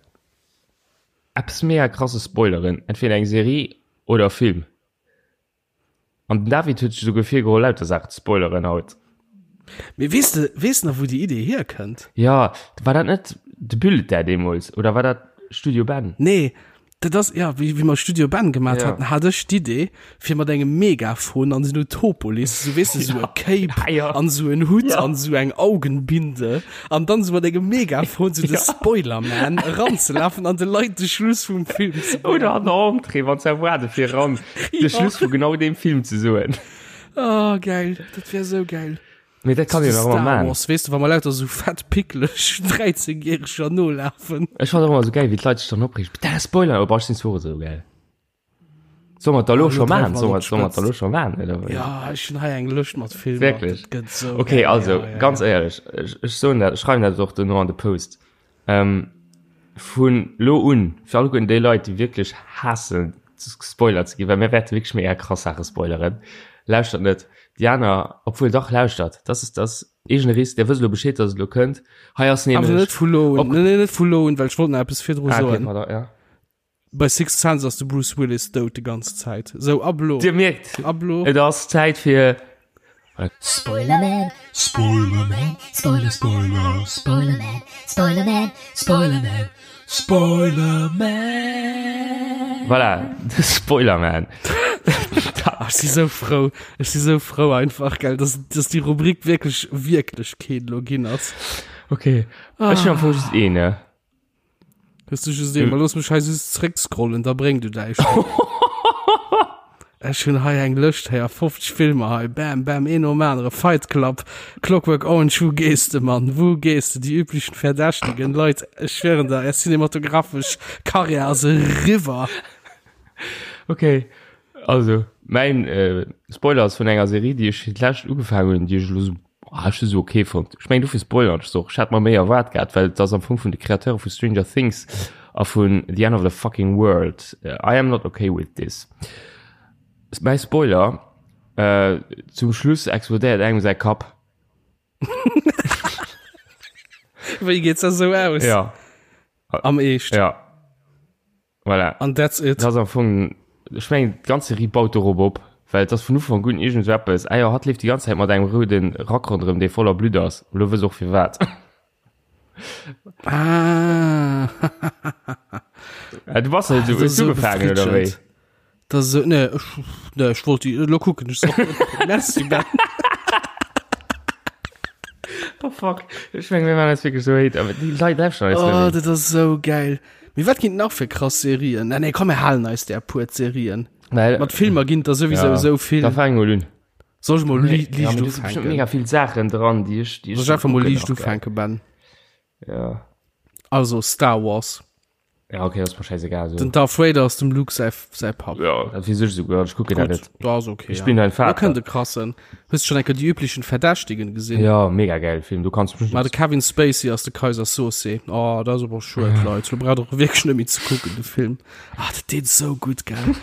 eppes mega krasses spoileren, entweder eng Serie oder e Film. An den David huet sech esouguer virgeholl, lauter Saachen ze spoileren haut. Mee weess de, weess nach wou déi Idee hierkënnt? Jo, war dat net de Bulletin deemools oder war dat Studio Ben? Nee, Dat ass, ja, wéi, wéi mer Studio Ben gemat Ja. haten, hat ech d'Idee, fir mat engem Megafon an den Utopolis, sou weess de, sou e Cape Ja, ja. an sou en Hutt Ja. an sou eng Augenbinde an dann sou mat engem Megafon sou de Ja. Spoilerman eranzelafen an de Leit de Schluss vum Film ze Oder an der Entrée, wann se erwaarde fir eran, de Ja. Schluss vu genau deem Film ze soen. Oh, geil, dat wär sou geil. Mee dat kann een nach ëmmer Star maan. Wars, weess de, wa mer lauter sou fett picklech 13 järeger nolafen. Ech fannen och ëmmer sou gäil wéi d'Leit sech dann opreegen, Putain Spoiler, oh boah ech sinn zwar och esou gäil. Solle mer et da lo Ah, scho lo maan? dreiwe mer Solle et mer op solle mer et da lo d'Spëtzt. scho maan oder wéi? Ja, ech hunn hei eng Lëscht mat Filmer, Wierklech? dat gëtt sou Okay, gäil, also ja, ja, ganz ja. éierlech, ech ech soen dat, ech schreiwen dat och dono an de Post, ähm, vun lo un, fir alleguerten déi Leit déi wierklech haassen gespoilert ze ginn, well mir wäerte wierklech mega krass Saache spoileren, lauschtert net déi aner, obwuel dach lauschtert, das ist das eegene Risk, där wësst elo Bescheed, dass et elo kënnt. Hei ass Awer nämlech net vu lo un, op nee, nee, net vu lo un, well ech wollt nach eppes virdru Ah, okay, soen. pardon, ja. Bei Sixth Sense ass de Bruce Willis dout de ganz Zäit. Sou, ab lo. Dir mierkt, Ab lo. et ass Zäit fir. Spoilerman, Spoilerman, Spoiler, Spoiler, Spoilerman, Spoilerman, Spoilerman, Spoilerman. Voilà, de Spoilerman. Ah, ech si sou frou, ech si sou frou einfach, gell, dass, dass déi Rubrik wierklech Wierklechkeet lo ginn ass. Okay, ech hunn am Fong just een, ne? Hues du just een? Ma looss mech hei just zréckscrollen, da bréng du däi schon. Ech hunn hei eng Lëscht hei a 50 Filmer hei, bam, bam, een nom anere, Fight Club, Clockwork Orange, wou gees de, Mann, wou gees de, Die üblichen Verdächtigen, Leit, ech schwéieren der, är cinematographesch Karriär ass eriwwer. Okay, also mäin äh, Spoiler ass vun enger Serie, déi ech fir d'lescht ugefaangen hunn, déi ech elo sou, ah, ech hu se okay fonnt. Ech mengen dofir spoilern ech se och. Ech hat mer méi erwaart gehat, well et ass am Fong vun de Kreateure vu Stranger Things a vun The End of the Fucking World. I am not okay with this. Mäi Spoiler, äh, zum Schluss explodéiert engem säi Kapp. Wéi geet dat sou aus? Ja. Am Eescht? Ja. Voilà. An that's it. Dat ass am Fong, ech mengen, d'ganz Serie baut dorop op, well et ass vun Ufank un iergend esou eppes, ah jo, hatt leeft déi ganz Zäit mat engem roude Rack ronderëm, dee voller Blutt ass. Elo wëss och firwat. Ah. Ah, du bass net esou, Dat ass hues du esou ugefaangen, oder wéi? befriedegend. Dat ass esou, nee, ech, nee, ech wollt déi, elo kucken ech se och. Merci, Ben. Oh fuck, ech mengen, mir maachen eis wierklech esou hate, awer déi Leit lauschteren eis net Oh, méi. dat ass esou geil. Mee wat ginn et nach fir krass Serien? Nee, nee, komm, mir halen eis där puer Serien. Well, Mat Filmer ginn et der souwisou ja, esou vill. Da fang mol un. Soll ech mol li Ja, liicht mee do si bestimmt ufänken? mega vill Saachen dran, déi ech, déi ech Soll ech einfach mol kucken liicht nach, gell. ufänken, Ben? Ja. Also, Star Wars. Ja, okay, das ist mir scheißegal. So. Den Darth Vader ass dem Luke säi, säi Papp. Ja, dat weess ech souguer, ech kucken dat Gutt, net. da ass okay. Ich bin ein Vater. Da kënnt e krassen. Hues du schon eng Kéier die üblichen Verdächtigen gesinn? Ja, mega geil Film, du kannst Ma de Kevin Spacey ass de Kaiser Soze. Oh, dat ass awer schued, Leit. Lo braucht och wierklech net méi ze kucken, de Film. Ah, dat deet esou gutt, gell?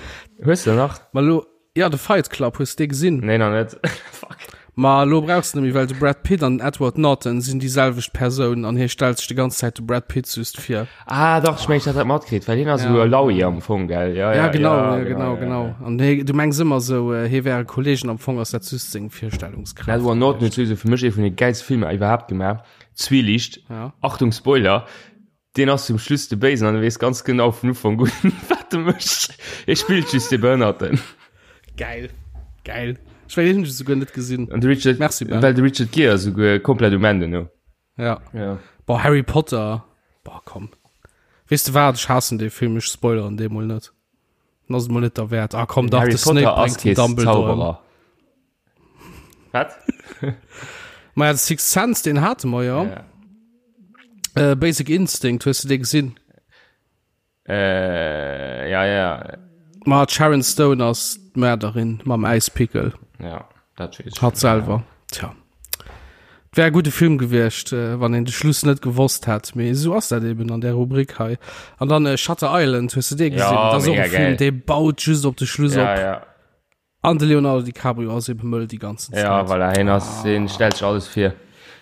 Hues de nach? Ma lo, Ja, de Fight Club, hues de dee gesinn? Nee, nach net. Fuck. Ma elo brauchs de net méi, well de Brad Pitt an den Edward Norton sinn déi selwecht Persoun an hie stellt sech de ganz Zäit de Brad Pitt just vir. Ah, dach, ech mengen, ech hat dat matkritt, well hien ass esou e Laui am Fong, gell? Ja, Ja, ja, genau, ja, ja, genau, ja, genau. ja. An hie, du mengs ëmmer esou, hie wär e Kolleeg an am Fong ass dat just seng Virstellungskraaft. Den Edward Norton huet souwisou fir mech ee vun de gäilste Filmer iwwerhaapt gemaach, Zwielicht. Ja. Achtung Spoiler! Deen ass zum Schluss de Béisen an e weess ganz genau vun Ufank un, wat e mécht. E spillt just de Behënnerten. Geil. Geil. Ech mengen, deen hunn ech esouguer net gesinn. An de Richard, Merci, Ben. well de Richard Gere ass esouguer komplett um Enn duerno. Ja. Ja. Boah, Harry Potter. Boah, komm. Weess de wat, ech haassen dee Film, ech spoileren dee mol net. Dann ass et mol net derwäert. Ah komm, dach, Harry de Snape Potter ass bréngt den kee Dumbledore ëm. Zauberer. Wat? Ma ja, de Sixth Sense, deen hate mer jo. Ja. Äh, Basic Instinct, hues du dee gesinn? Äh, ja, ja. Ma d'Sharon Stone ass d'Mörderin mam Äispickel. Ja, dat weess ech. Hatt selwer. Tja. Wär e gudde Film gewiescht, äh, wann een de Schluss net gewosst hätt. Mee esou ass dat eben an där Rubrik hei. An dann äh, Shutter Island, hues du dee gesinn? Ja, dat ass och mega e Film, geil. dee baut just op de Schluss Ja, op. ja. An de Leonardo DiCaprio ass eben mëll déi ganzen Zäit. Ja, voilà, hien ass, hien stellt sech alles vir.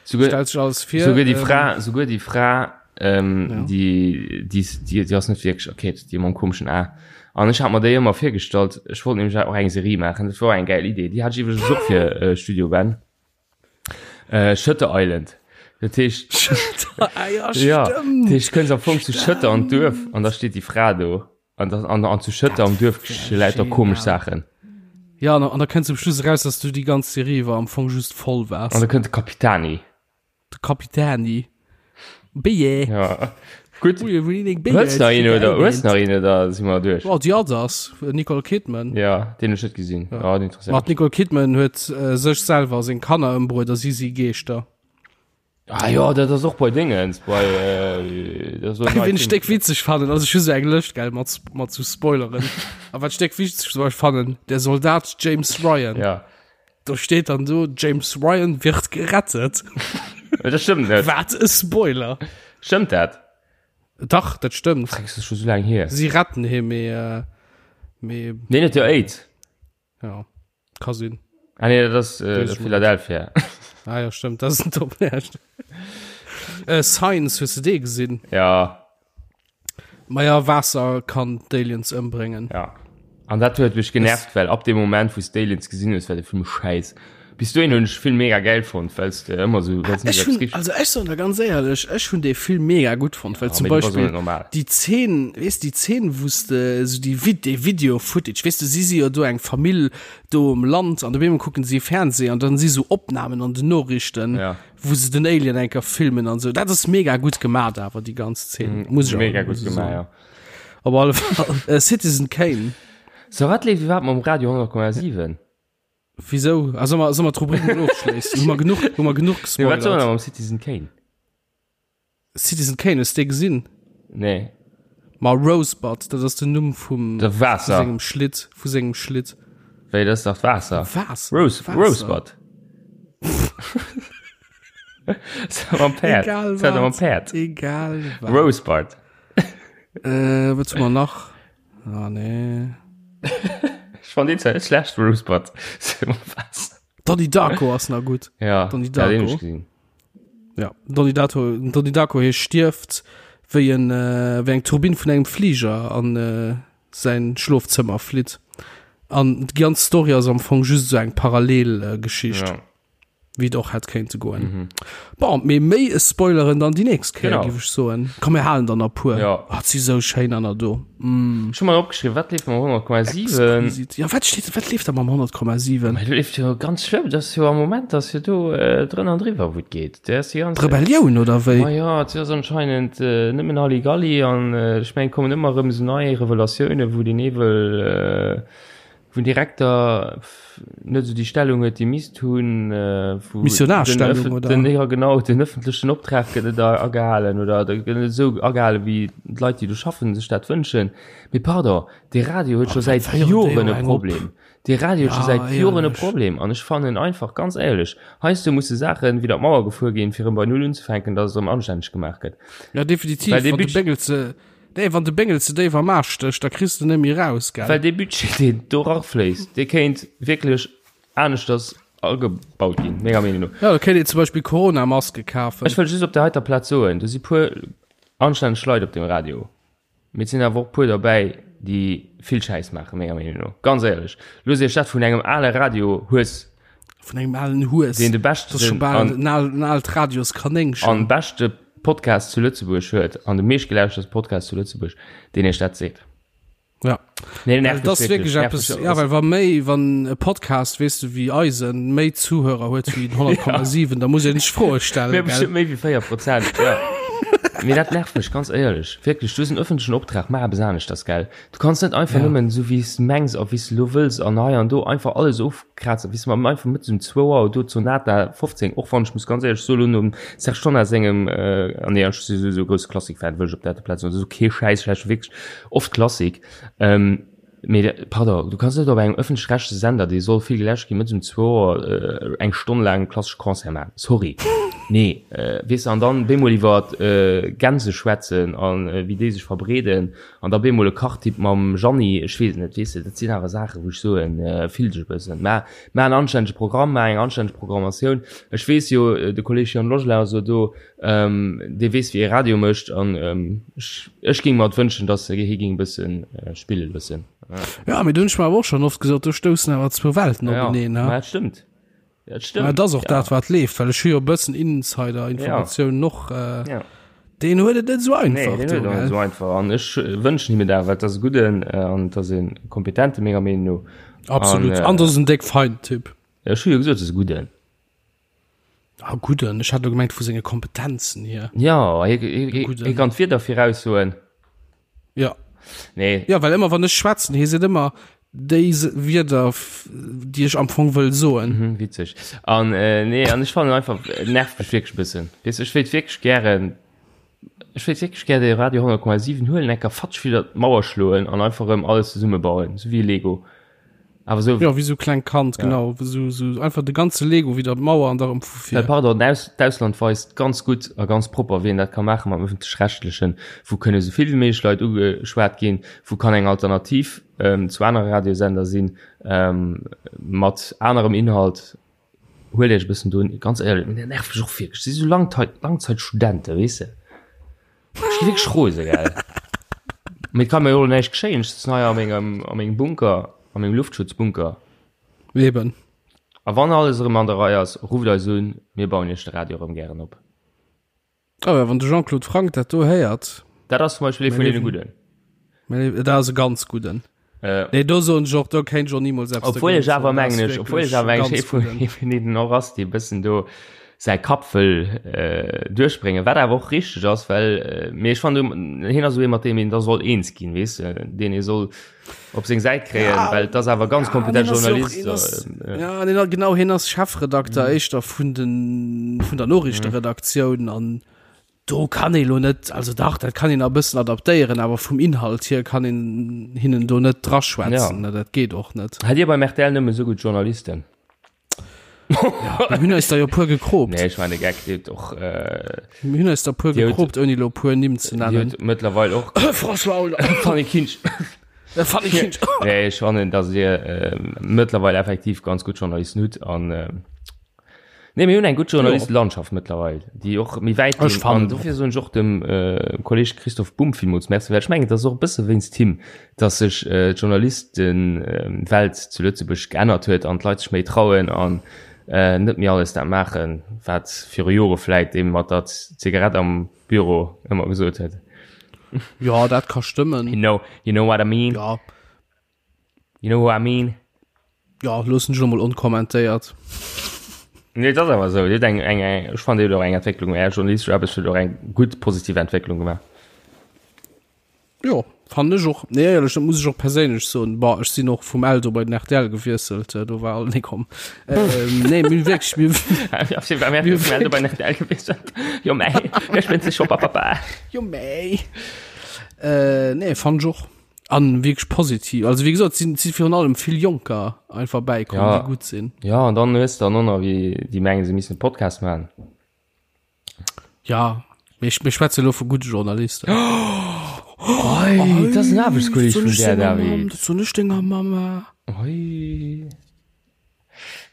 Souguer, Stellt sech alles vir. souguer déi ähm, Fra, souguer déi Fra, ähm, Ja. déi, déi, déi, déi ass net wierklech erkeet, déi mam komeschen A. An ech hat mer déi ëmmer virgestallt, ech wollt nämlech och eng Serie maachen, dat war och eng gäil Idee, déi hat ech iwwregens och fir äh, Studio Ben. Äh, Shutter Island. Dat heescht, Ah, ja, ja, dat stimmt. heescht, kënns am Fong zu Shutter an d'Duerf an da steet déi Fra do. An, das, an, an zu Schëtter am Duerf geschie lauter komesch Saachen. Ja, an, an da kënnt zum Schluss eraus, dass du déi ganz Serie iwwer am Fong just voll waars. An da kënnt de Kapitani. De Kapitani. Béier. Ja. Gutt. Ui, wou deen Béier Hues nach een oder hues nach een oder si mer duerch? Oh, The Others, Nicole Kidman. Ja, deen hu ech net gesinn. Ja, oh, den interesséiert Ma d'Nicole Kidman huet äh, sech selwer seng Kanner ëmbruet a si si Geeschter. Ah jo, dat ass och bei Dingens, bei äh, dat ass och Ween ech déck witzeg fannen, also ech hu sou eng Lëscht gell mat mat sou Spoileren. A wat ech déck witzeg zum Beispill fannen, der Soldat James Ryan. Ja. Do steet dann do James Ryan wird gerettet. Dat stëmmt net. Wat e Spoiler. Stëmmt dat? Dach, dat stëmmt. Freck, dat ass scho sou laang hier. Si retten hie mee äh, mee Deen huet jo AIDS. Ja, ka sinn. Ah nee, dat ass äh, Philadelphia. Ah ja, stimmt, das ist ein Top. Ja, äh, Science, hues du dee gesinn? Ja. Ma ja, Waasser kann d'Aliens ëmbréngen. Ja. An dat huet mech genervt, well ab dem Moment, wou s d'Aliens gesinn hues, war de Film schäiss. Bis dohin hunn ech de Film mega gäil fonnt, well s de ëmmer sou, well s Ech hunn, also ech soen der ganz éierlech, ech hunn dee Film mega gutt fonnt, well Ja, zum mee du bass och Beispill net normal. déi Zeen, weess déi Zeen, wou s de esou déi Vid-, dee Video-Footage, weess de, si si jo do eng Famill do um Land an op eemol kucken si Fernseh an dann si sou Opnamen an den Noriichten, Ja. wou se den Alien eng Kéier filmen an sou. Dat ass mega gutt gemaat awer, déi ganz Zeen, muss ech awer Mega gutt esou gemaach, soen. ja. Op alle Fall, Citizen Kane. So, wat leeft iwwerhaapt mam Radio 100,7? Wieso? Ah, soll mer, soll mer d'Rubrik mol ofschléissen? Hu mer genuch, hu mer genuch Nee, wat soll gespoilert? mer mam Citizen Kane? Citizen Kane, hues de gesinn? Nee. Ma Rosebud, dat ass den Numm vum De vu Waasser. sengem Schlitt, vu sengem Schlitt. Wéi, dat ass dach d'Waasser. Waasser? Rose, Waasser. Rosebud. Mam Päerd. Egal Dat mam wat. Päerd. Egal wat. Rosebud. Äh, wat hu mer nach? Ah, nee. Ech fand deen zwar net schlecht, Rosebud. Donnie Darko ass nach gutt. Ja, Donnie ja, den Darko. hab ich gesehen. Ja, Donnie Darko, Donnie Darko hie stierft, wéi en, äh, wéi eng Turbinn vun engem Fliger an äh, säin Schlofzëmmer flitt. An déi ganz Story ass am Fong just esou eng Parallelgeschicht. Ja. Wéi et och hätt kéinte goen. Mhm. Bon, mee méi spoileren dann déi nächst Kéier, Genau. géif ech soen. Komm, mir halen dann a puer. Ja. Oh, si sou schéin aner do. Mm. Ech hu mer opgeschriwwen, wat leeft mam 100,7? Exquisit. Ja, wat steet, wat leeft da mam 100,7? Mä do leeft jo ganz schlëmm, dat ass jo am Moment, ass jo do äh, drënn an driwwer, wou et geet. Dat ass déi ganz. Rebellioun oder wéi? Ma ja, et ass anscheinend äh, nëmmen Halligalli an äh, ech mengen, et kommen ëmmer erëm esou nei Revelatiounen, wou den Ewel äh, Wou den Direkter net esou déi Stellung huet, déi misst hunn, wou Missionarstellung, oder? Den, ja genau, den ëffentlechen Optrag gëtt net agehalen oder gëtt net esou agehalen, wéi d'Leit, déi do schaffen, sech dat wënschen. Mee pardon, dee Radio huet scho säit Joren e Problem. Dee Radio huet scho säit Joren e Problem an ech fannen einfach, ganz éierlech, heiansdo musse Saachen widder d'Mauer gefuer ginn, fir erëm bei Null unzefänken, datt et erëm anstänneg gemaach gëtt. Ja, definitiv. Well dee Wann de Budget. Béngel ze Nee, wann de Béngel ze déif am Aarsch stécht, da kriss de net méi raus, gell? Well dee Budget, deen do rafléisst, dee kéint wierklech aneschters agebaut ginn, menger Meenung no. Ja, da kéint een zum Beispill Corona-Maske kafen. Ech wëll just op där heiter Plaz soen, do si puer anstänneg Leit op deem Radio, mee et sinn awer och puer derbäi, déi vill Schäiss maachen, menger Meenung no. Ganz éierlech, loosst Iech dat vun engem ale Radio-Hues Vun engem alen Hues. Deen de Das ist schon beschten bal an, en al, en aalt Radioskanéngchen. an beschte Podcast zu Lëtzebuerg huet an de meeschtgelauschterste Podcast zu Lëtzebuerg, deen iech dat seet. Ja. Nee, Well nervt das mech wirklich nervt eppes, mech ja, well wa méi, wann e Podcast, weess du, wéi eisen, méi Zuhörer huet wéi den 100,7, da muss een sech Froe stellen, Mir gell? bestimmt méi wéi 4 Prozent, ja. Mee dat nervt mech, ganz éierlech. Wierklech, du hues en ëffentlechen Optrag, maach eppes aneschters, gell? Du kanns net einfach Ja. nëmmen esou wéi s de mengs a wéi s de elo wëlls an hei an do einfach alles ofkrazen, wéi s de einfach mëttes um zwou Auer do d'Sonata 15, och wann ech muss ganz éierlech soen, elo nom Serge Tonnar sengem, äh, an nee, ech si souwisou e grousse Klassik-Fan, wëll ech op der Plaz soen, dat ass kee Schäiss, ech lauschteren wierklech oft Klassik, ähm, Mee pardon, du kanns net op engem ëffentlech-rechtleche Sender, dee soll vill geläscht ginn, mëttes um zwou Auer eng Stonn laang klassesche Concert maachen. Sorry. Nee, weess de, an dann bemol iwwer Gänse schwätzen a wéi déi sech verbreeden an da bemol e Kachtipp mam Jeanny, ech weess et net, weess de, dat sinn awer Saachen, wou ech soen, fill dech e bëssen. Mä maach en anstännege Programm, maach eng anstänneg Programmatioun. Ech weess jo, de Kolleg Jan Logelin ass jo do, Dee weess wéi ee Radio mécht an ech géing mer et wënschen, datt hie géing e bësse spille loossen. Ja, mee do hunn ech mer awer och schonn oft gesot, do stoussen awer zwou Welten openeen. Ja, dat stëmmt. Dat stëmmt. Mä et ass och dat, wat leeft, well ech hu jo e bëssen Insider-Informatiounen och. Deen huet et net esou einfach. Nee, deen huet et och net esou einfach an ech wënschen him et awer, well et ass e gudden an et ass e kompetente menger Meenung no. Absolut. An et ass en déck feinen Typ. Ech hu jo gesot, et ass e gudden. Ah, gudden. Ech hat elo gemengt vu senge Kompetenzen hier. Ja, hie, hie, hie kann d'Wieder viraussoen. Ja. Nee. Ja, well ëmmer wann ech schwätzen, hie seet ëmmer déi Wierder, déi ech am Fong wëll soen. Mhm, witzeg. An äh, nee, an ech fannen einfach, et nervt mech wierklech e bëssen. Weess, ech wéilt wierklech gären, ech wéilt wierklech gär de Radio 100,7 huelen, enker fatsch widder d'Mauer schloen an einfach erëm alles zesummebauen, sou wéi e Lego. Awer sou. Ja, wéi sou klengt Kand, ja. genau. Sou, sou einfach de ganze Lego widder d'Mauer an da rëm vu vir. Well pardon, d'Ausland weist ganz gutt a ganz propper, wéi een dat ka maache mam Ëffentlech-Rechtlechen, wou kënne sou vill wéi méiglech Leit ugeschwat ginn, wou kann eng Alternativ ähm, zu anere Radiosender sinn, ähm, mat anerem Inhalt. Huelt Iech e bëssen do, ganz éierlech, dat nervt mech och wierklech, si sou Langzeit, Langzeitstudenten, weess de. Ech gi wierklech rose, gell. Mee et ka mir jo näischt geschéien, ech sëtzen hei a mengem, a mengem Bunker, a mengem Luftschutzbunker. Eben. A wann alles erëm an der Rei ass, rufft eis un, mir bauen iech de Radio erëm gären op. Oh ja, wann de Jean-Claude Franck dat do héiert. Dat ass zum Beispill ee vun deene Gudden. Dat ass e ganz Gudden. Äh, nee, do soen ech och, do kéint ech och nimools eppes Obwuel ech awer mengen ech, obwuel ech awer mengen ech ee vun ee vun deenen och ass, dee bëssen do säi Kapp wëll äh, duerchbréngen, wat awer och richteg ass, well äh, mee ech fannen hien ass esou ee mat deem een da soll eens ginn, weess de, deen ee soll op seng Säit kréien, ja, well et ass awer ganz kompetent ja, Journalist. Ass, äh, ja, nee, genau, hien ass Chefredakter mhm. éischter vun den vun der Noriichteredaktioun mhm. an Do kann ee lo net, also dach, dat kann een a bëssen adaptéieren, awer vum Inhalt hier kann een hinnen do net draschwätzen, ja. dat geet och net. Hat Dir beim RTL nëmme sou gutt Journalisten? Ja, mir hunn eis der jo puer gekroopt. Nee, ech war de Geck, Dir hutt och. Äh, mir hunn eis der puer gekroopt, ouni lo puer Nimm ze nennen. Dir hutt mëttlerweil och. François Hollande. Fanny Kinsch. Fanny Kinsch. Nee, ech fannen, datt Dir äh, mëttlerweil effektiv ganz gutt Journalisten hutt an. Äh, Nee, mir hunn eng gutt Journalistelandschaft mëttlerweil, déi och méi wäit Ech ginn. An dofir soen ech och dem äh, Kolleg Christoph Bumb villmools Merci, well ech mengen, et ass och e bësse wéinst him, dass sech äh, d'Journalistenwelt zu Lëtzebuerg geännert huet an d'Leit sech méi trauen an äh, net méi alles dat maachen, wat viru Jore vläit dee mat der Zigarett am Büro ëmmer gesot huet. Ja, dat ka stëmmen. You know, you know what I mean? Ja. You know what I mean? Ja, loossen ech lo mol onkommentéiert. Nee, dat ass awer esou. Dir hutt eng, eng, eng, ech fannen, Dir hutt och eng Entwécklung, Är journalistesch Aarbecht huet och eng gutt positiv Entwécklung gemaach. Jo, fannen ech och. Nee, éierlech, dat muss ech och perséinlech soen. Bon, ech sinn och vum Eldo bei den RTL gewiesselt, do war alt nee komm. Ähm, nee, mir hunn wierklech, mir, Mir vum Eldo bei den RTL gewiesselt. Jo mei, ech spënnt sech scho, papapa. Jo mei. Äh, nee, fannen ech och. An wierklech positiv. Also wéi gesot, sinn si virun allem vill Jonker einfach bäikomm, Ja. déi gutt sinn. Ja, an dann hues de dann och nach wéi déi mengen, se missten e Podcast maachen. Ja, mee ech, mir schwätze lo vu gudde Journalisten. Oi, dat ass en Aarbechtskolleg vun där, David. Dat soen ech denger Mamma. Oi.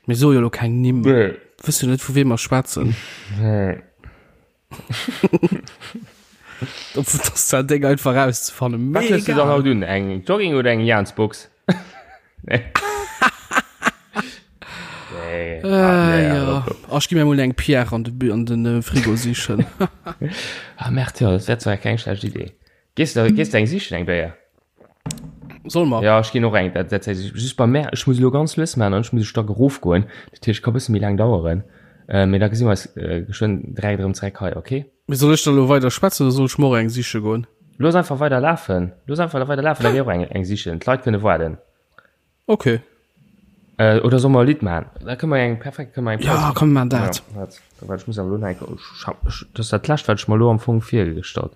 Mir soe jo lo keng Nimm. Nee. Wëss jo net, vu weem mer schwätzen. Nee. Dat ass zwar déck einfach rauszefannen. Wat hues du dann haut un? Eng Jogging oder eng Jaansbox? Nee. Nee. Äh, Ah, nee, ja. op, op. Ach, ech gi mir mol eng Pierre an de, an den äh, Frigo sichen. Ah, merde, ja, dat wär zwar keng schlecht Idee. Gees du, gees du eng sichen, eng Béier? Soll mer? Ja, ech ginn och eng. Dat, dat, just bei mär, ech muss elo ganz lues maachen an ech muss e Stack erofgoen. Dat heescht, ka bësse méi laang daueren. Äh, mee da gesi mer eis äh, geschwënn direkt erëm zeréck hei, okay? Mee soll ech da lo weider schwätzen oder soll ech mer och eng siche goen? Looss einfach weider lafen. Looss einfach weider lafen, da geh och eng, eng sichen. D'Leit kënne waarden. Okay. Äh, oder soll mer e Lidd maachen? Da kënne mer eng, perfekt, kënne mer eng Paus. Ja, komm, mir maachen dat. Ja, wat, wat, ech muss awer elo nach eng, ech hab, ech, dat ass dat lescht, wat ech mer elo am Fong virgestallt.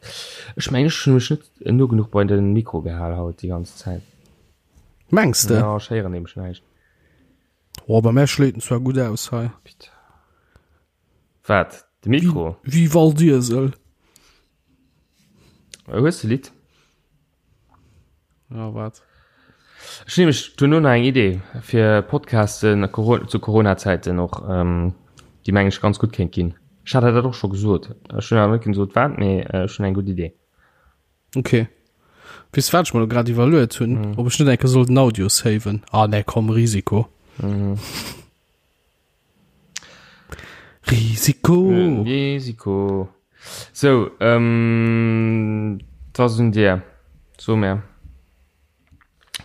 Ech mengen, ech hunn mech net no genuch bei den Mikro gehal haut déi ganz Zäit. Mengs de? Ja, ech héieren nämlech näischt. Oh, bei mär schléit en zwar gutt aus hei. Bitte. Wat? De Mikro? Wéi Waldiesel. Hues de Lidd? Ja, wat? Ech hunn nämlech duerno nach eng Idee fir Podcasten zu Corona-Zäiten och, déi meng ech ganz gutt kéint ginn. Ech hat der dat och scho gesot. Ech hunn awer net gesot wat, mee ech hunn eng gutt Idee. Okay. Weess wat ech mer lo grad iwwerluet hunn? Ob ech net eng Kéier soll den Audio saven. Ah nee, komm, Risiko. Risiko. Risiko. Sou, ähm, 't ass un dir. So mär.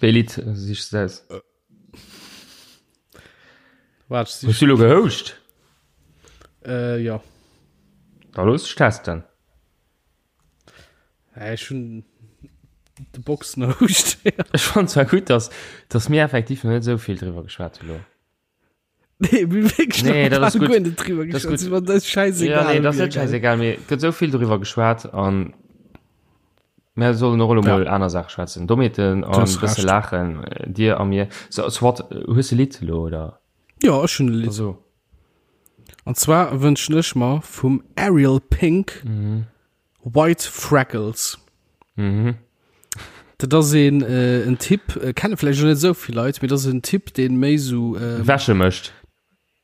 Wéi Lidd sichs de aus? Waart, ech Hues du lo gehouscht? Äh, jo. Da looss dech testen. Ech hunn de Boxenhouscht. Ech fannen zwar gutt, dass, dass mir effektiv nach net esou vill driwwer geschwat hu lo. Nee, mir wierklech Nee, dat ass gutt. gutt. Net driwwer Dat ass geschwat. gutt. Dat ass scheißegal. Ja, nee, dat ass net scheißegal, mee et gëtt esou vill doriwwer geschwat an mir sollen och elo mol aner Saache schwätzen. Dommheeten an hues e bësse Recht. laachen, dir a mir. So, soit, hues de Lidd elo, oder? Ja, ech hunn e Lidd. Also. An zwar wënschen ech mer vum Ariel Pink Mhm. White Freckles. Mhm. Dat ass een, äh, en Typ, äh, kenne vläicht och net esou vill Leit, mee dat ass en Typ, deen méi sou, ähm, Wäsche mécht.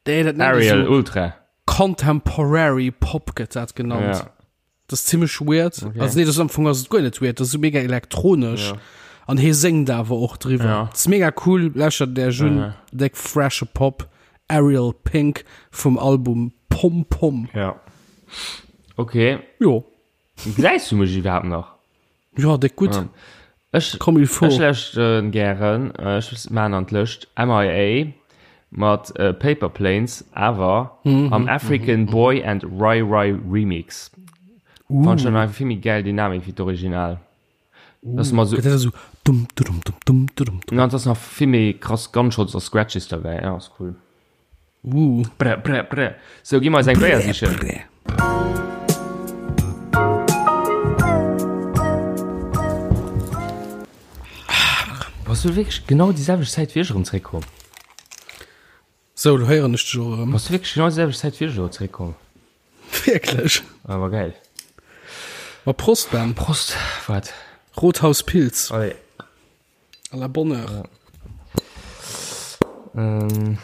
Nee, dat nennt ee Ariel sou Ultra. Contemporary Pop gëtt dat genannt. Ja. Dat ass zimmlech weird. Okay. Also nee, dat ass am Fong ass et guer net weird, dat ass sou mega elektronesch. Ja. An hie séngt awer och driwwer. Ja. Dat ass mega cool, lauschtert Iech un, Ja. déck freshe Pop, Ariel Pink vum Album Pom Pom. Ja. Okay. Jo. Gesäis du mech iwwerhaapt nach? Jo, déck gutt. Ja. Ech, Comme il faut. Ech lauschteren gären, ech maan an d'Lëscht MIA mat Paper Planes, awer am African Boy and Rai Rai Remix. Fannen ech einfach vill méi gäil Dynamik wéi d'Original. Das ass Gëtt dat esou dum dudum dum dum dudum dum. Na, et ass nach vill méi krass Gunshots a Scratches derbäi. Ja, ass cool. Uh. Brr, brr, brr. Sou, gi mer eis eng Béier sichen. Brr. Bass du wierklech genau déi selwecht Zäit wéi ech erëm zréckkomm? Sou, lo héieren ech dech och erëm. Bass du wierklech genau déi selwecht Zäit wéi ech elo zréckkomm? Wierklech? Awer geil. Ma Prost, Ben. Prost, wat? Rothaus Pils. Allez. À la bonne heure. Ja. Ähm.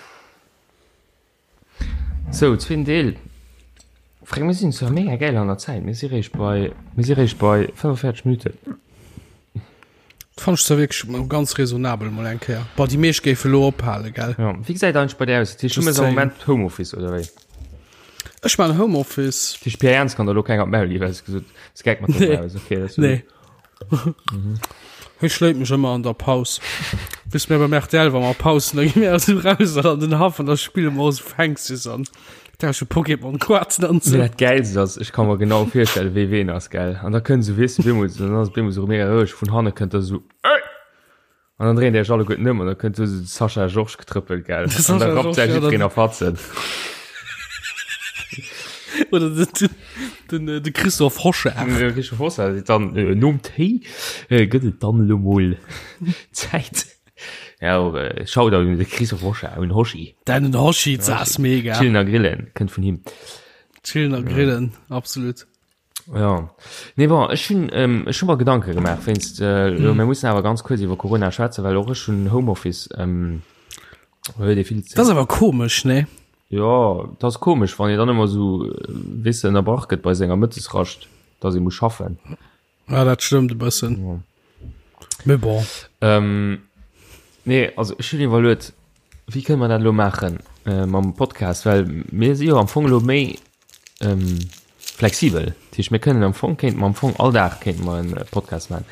Sou, zweeten Deel. Fränk, mir sinn zwar mega geil an der Zäit. Mir si réischt bei, mir si réischt bei 45 Minuten. Fand ech zwar wierklech mol ganz raisonnabel mol eng Kéier. Boah, déi meescht géife lo ophale, gell? Ja, wéi gesäit eigentlech bei dir aus? Dat heescht, du Just méchs am saying. Moment Homeoffice, oder wéi? Ech man Homeoffice. Dat heescht, Pierre Ernst kann der lo keng op d'Maul ginn, well s du gesot hues, geck mat Nee. der Maus. Okay, dat ass Nee. Hie schléit mech ëmmer an der Paus. Bis mir beim RTL, wa mer Paus hunn, da gi mir esou raus an den Haff an da spille mer esou Fängses an tausche Pokémon-Kaarten an Mee esou. dat Gäilst ass, ech ka mer genau virstellen, wéi ween ass, gell? An da kënnt esou, weess de, bemol, dann ass et bemol esou mega roueg, vun hanne kënnt da esou, Ey! An dann dréint Dir iech alleguerten ëm an da kënnt esou de Sascha Georges getrëppelt, gell? De An da Sascha rappt Georges, säi ja, jiddwereen dann- a Fatzen. Oder den, den, den, de Christophe Hochard. De Christophe Hochard seet dann, äh, nom Téi äh, gëtt et dann elo mol Zäit. Ja, och, äh, Shoutout un de Christophe Hochard, un Hoshi. Den Hoshi, das ass mega. Chillen a Grillen kënnt vun him. Chillen a Grillen, absolut. Ja. Nee, bon, ech hunn ähm, ech hunn mer Gedanke gemaach wéinst äh, mm. mir mussen awer ganz kuerz iwwer Corona schwätzen, well och ech hunn Homeoffice ähm, huet ee vill Dat ass awer komesch, ne? Ja, dat ass komesch, wann ee dann ëmmer sou äh, weess de, ënnerbrach gëtt bei senger Mëttesrascht, dass ee muss schaffen. Ja, dat stëmmt e bëssen. Ja. Mais bon. Ähm, nee, also ech hunn iwwerluet, wéi kënne mer dat elo maachen äh, mam Podcast, well mir si jo am Fong elo méi ähm, flexibel. Dat heescht, mir kënnen am Fong, kéinte mer am Fong all Dag kéinte mer en Podcast maachen.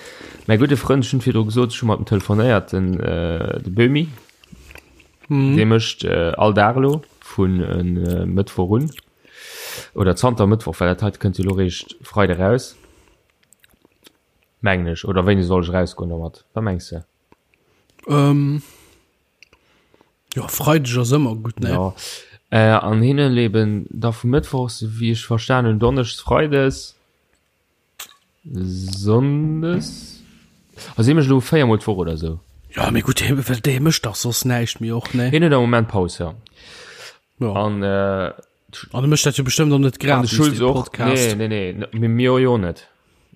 Mäi gudde Frënd, ech hunn virdru gesot, ech hu mat em telefonéiert, den, äh, de Böhmi, Mhm. dee mécht äh, all Dag elo vun äh, Mëttwoch un. Oder zanter Mëttwoch, well dat heite kënnt jo elo réischt Freide raus. Mengen ech. Oder wéini soll ech erausgoen domat? Wat mengs de? Ähm, ja, Freideg ass ëmmer gutt, ne? Ja. Äh, an hinne leben da vu Mëttwochs, wéi ech verstan hunn, Donneschs, Freides, Sonndes. Also hie mécht elo 4 mol d'Woch oder sou. Ja, mee gutt, hie, well dee mécht dach soss näischt méi och, ne? Hien huet am Moment Paus, ja. Ja. An, äh, An e mécht dat jo bestëmmt och net An de gratis, Schulz dee och. Podcast. Nee, nee, nee, mee mir jo net.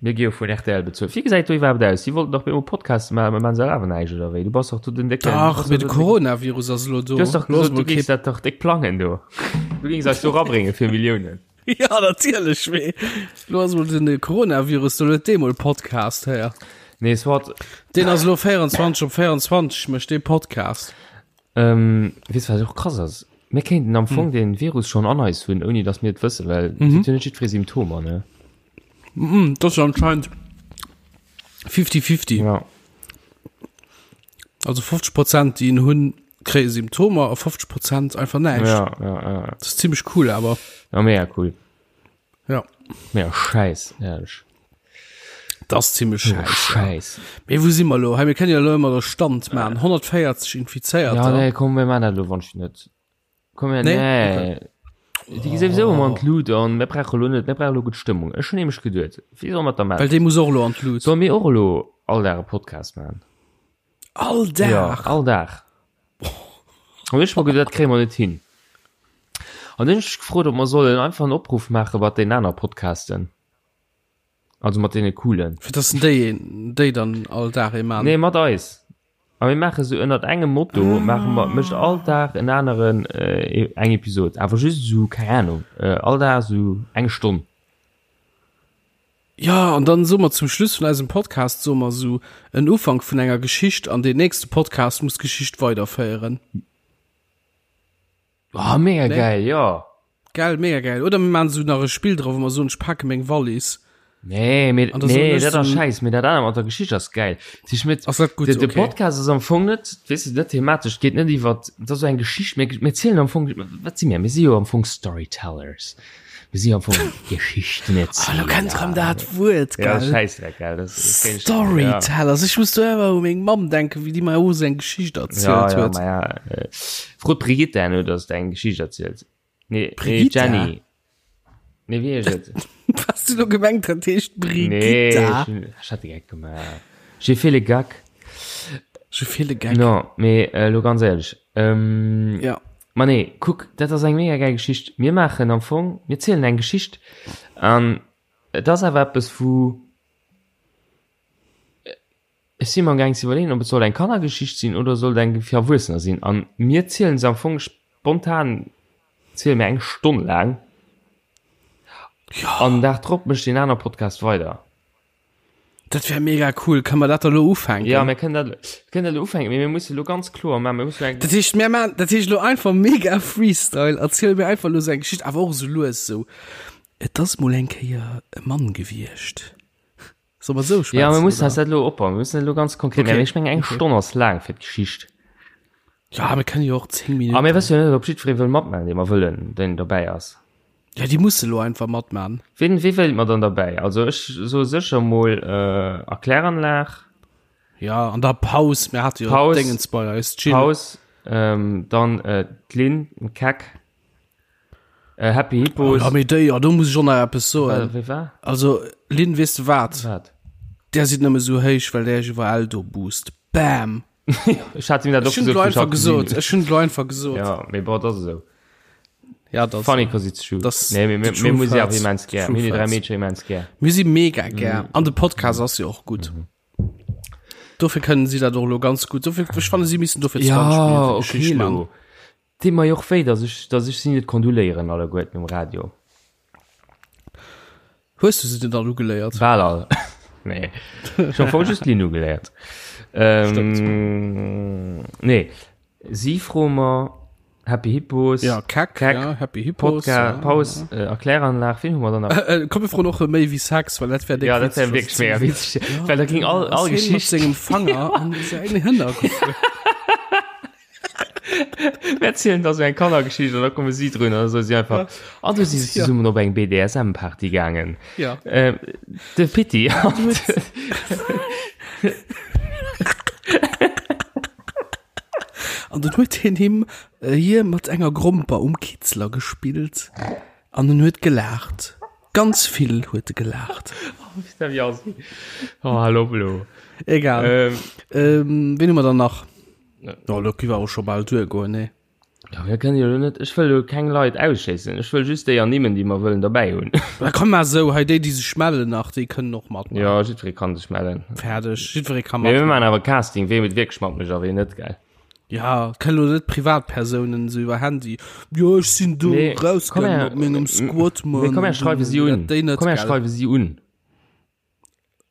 Mir gi jo vun rtl bezuelt. Wéi gesäit do iwwerhaapt aus? Si wollten dach bemol Podcaste maachen, mä maachen se awer näischt, oder wéi? Du bass dach do den décken. Dach, mee de Coronavirus ass elo do. Du hues dach Lo ass gesot, du mol géings kee. dat dach déck plangen do. Du géings eis do rabrénge fir Milliounen. Ja, natierlech, mee lo ass mol den Coronavirus do, lo huet dee mol Podcast, héier. Nee, soit. Deen ass elo 24 op 24, mécht dee Podcast. Ähm, weess wat och krass ass? Mir kéinten am Fong den Virus schonn an eis hunn, ouni datt mir et wëssen, well et huet jo net jiddweree Symptomer, ne? Mm, dat ass jo anscheinend 50-50. Ja. Also 50 Prozent, déi en hunn, kréie Symptomer a 50 Prozent einfach näischt. Ja, ja, ja. Dat ass zimmlech cool awer. Ja, mega cool. Ja. Mega schäiss, ehrlech. Dat ass zimmlech schäiss. Schäiss. Mee wou si mer elo? Hei, mir kënnen jo elo ëmmer de Stand maachen. 140 Infizéierter. Ja, nee, komm, mir maachen dat elo wann ech net. Komm her, Nee? nee. Déi gi souwisou ëmmer an d'Lut an mir brauche lo net, mir brauche lo gutt Stëmmung. Ech hunn nämlech geduet, wéi solle mer dat da Well maachen? dee muss och elo an d'Lut. Solle mir och elo all Dag e Podcast maachen? All Dag? Ja, all Dag. An ech mer geduet, dat kréie mer net hin. An dunn hunn ech mech gefrot, ob mer sollen einfach en Opruff maache mat den aner Podcasten. Also mat deene coolen. Fir dass déi, déi dann all Dag ee maachen? Nee, mat eis. A mir maache sou ënnert engem Motto, maache mer, mécht all Dag en aneren eng Episod, awer just esou, keng Ahnung, all Dag esou eng Stonn. Jo, an dann soe mer zum Schluss vun eisem Podcast, soe mer esou en Ufank vun enger Geschicht an deen nächste Podcast muss d'Geschicht weiderféieren. Oh, mega Nee? geil, jo. Gell, mega geil. Oder mir maachen esou nach e Spill dra, wou mer soen, ech pake meng Wallis. Nee, mee, An da soen nee, ech dat ass so- scheiss, mee dat anert mat der Geschicht ass geil. Sich mit, Ass dat gutt? de, de Okay. Podcast ass am Fong net, weess de, net thematesch, geet net iwwer, dat ass sou eng Geschicht, mir, mir zielen am Fong, wat si mir? Mir si jo am Fong Storytellers. Mir si am Fong Ah, lo kennt rëm dat Wuert, Ja, gell? Schäissdreck, gell? Das, das kenn ich- Storytellers. Ich muss do ëmmer u meng Mamm denken, wéi déi mer och sou eng Geschicht Ja, erzielt ja, ja, huet. ma ja. Äh, Frot Brigitte herno, dass de eng Geschicht erzielt. Nee, nee, Brigitte? Jenny. Nee, wéi heescht et? Was du lo gemengt dat heescht Nee, Brigitta? ech hun- ech hat de Geck gemaach. J'ai fait le gag. J'ai fait le gag. No, mee äh, lo ganz éierlech. Ähm, Ja. Ma nee, kuck, dat ass eng mega geil Geschicht. Mir maachen am Fong, mir zielen eng Geschicht an et ass awer eppes wou ech si mer am gaang ze iwwerleeën, ob et soll eng Kannergeschicht sinn oder soll et eng fir Erwuessener sinn. An mir zielen se am Fong spontan ziele mir eng Stonn laang. Ja. An den Dag drop mécht deen aner Podcast weider. Dat wär mega cool. Kann mer dat da lo ufänken? Ja, mir kënnen dat, kënnen dat lo ufänken, mee mir musse lo ganz kloer maachen, mir musse eng. Dat heescht, mir maan, dat heescht lo einfach mega Freestyle. Erziel mir einfach lo sou eng Geschicht, awer och sou lues sou. Et ass mol eng Kéier e Mann gewiescht. Soll mer sou schwätzen? Ja, mir mussen oder? eis dat lo opbauen. Mir mussen dat lo ganz konkret Okay. maachen. Ech mengen, eng Okay. Stonn ass laang fir d'Geschicht. Ja, mir kënnen jo och 10 A mir Minuten. wësse jo net, ob jiddweree wëll matmaachen, dee mer wëllen, deen dobäi ass. Ja, déi musse lo einfach matmaachen. Wien, wie wéilt mer dann derbäi? Also ech soe sécher mol äh, Erkläranlag. Ja, an der Paus, mir hate jo Paus. Dingens bei eis, Jill. Paus, ähm, dann äh, d'Lynn, den Keck, äh, Happy Hippos. Ja, mee déi, ja, do muss ech och nach eppes soen. Äh, wie war? Also, Lynn, weess de wat? Wat? Där sidd nëmme sou héich, well där iech iwwerall do boost. Bam! Ech hat him dat och Ech hunn gesot, et wou ech einfach hatt gesinn gesot. hunn. Ech hunn et einfach gesot. Ja, mee bon, dat ass esou. Ja, das, Funny cause it's true. Das, nee, mir, mir, the mir truth muss ja hurts. immens gär. Truth Mir die drei hurts. Mädchen immens gär. Mir si mega gär. Mhm. An de Podcast ass jo och gutt. Dofir kënnen si dat och lo ganz gutt. Dofir, ech fanne si missen dofir 20 Ja, Minuten okay, Geschicht man. lo. Deet mer jo och wéi, dass ech, dass ech si net kondoléieren alleguerten um Radio. Hues du se denn all ugeléiert? Bal all. Nee. Ech hu voll just d'Linn ugeléiert. Ähm, nee. Si froe mer Happy Hippos. Ja, Keck, Keck, ja, Happy Hippos. Podcast, ja, Paus, äh, Erkläranlag, wen hu mer dann nach? Äh, äh, komm, wir froen och méi wéi Sex, well dat wär Ja, dat wär wierklech mega witzeg. Well da ging all, all Geschicht Geschicht. sengem Fanger an seine Hënner gefuer. Mir erzielen da sou eng Kannergeschicht an da komme si drun an da soe si einfach, an du si se zesummen op eng BDSM-Party gaangen. Ja. Ähm, de Pitti an An dann huet hien him äh, hie mat enger Gromper um Kitzler gespillt an en huet gelaacht. Ganz vill huet e gelaacht. Oh, hallo, hallo. Egal. Ähm, ähm, wen hu mer dann nach? Ja, lo gi war och scho bal duergoen, nee. Ja, mir kënnen jo net, ech wëll jo keng Leit ausschléissen. Ech wëll just déi ernimmen, déi mer wëllen derbäi hunn. Da komm mal sou, hei déi, déi sech mellen nach, déi kënnen och matmaachen. Ja, jiddweree kann sech mellen. Fäerdeg, jiddweree ka Mee mir matmaachen. maachen awer Casting, wee et wierklech matmécht a wee net, gell? Ja, et kënnen lo net Privatpersounen sou iwwer Handy, jo ech sinn do Nee, komm rausgaangen her, mat mengem Squad, mee Mann, komm, mir schreiwe si un. Dat déi net, Komm, mir gell? schreiwe si un.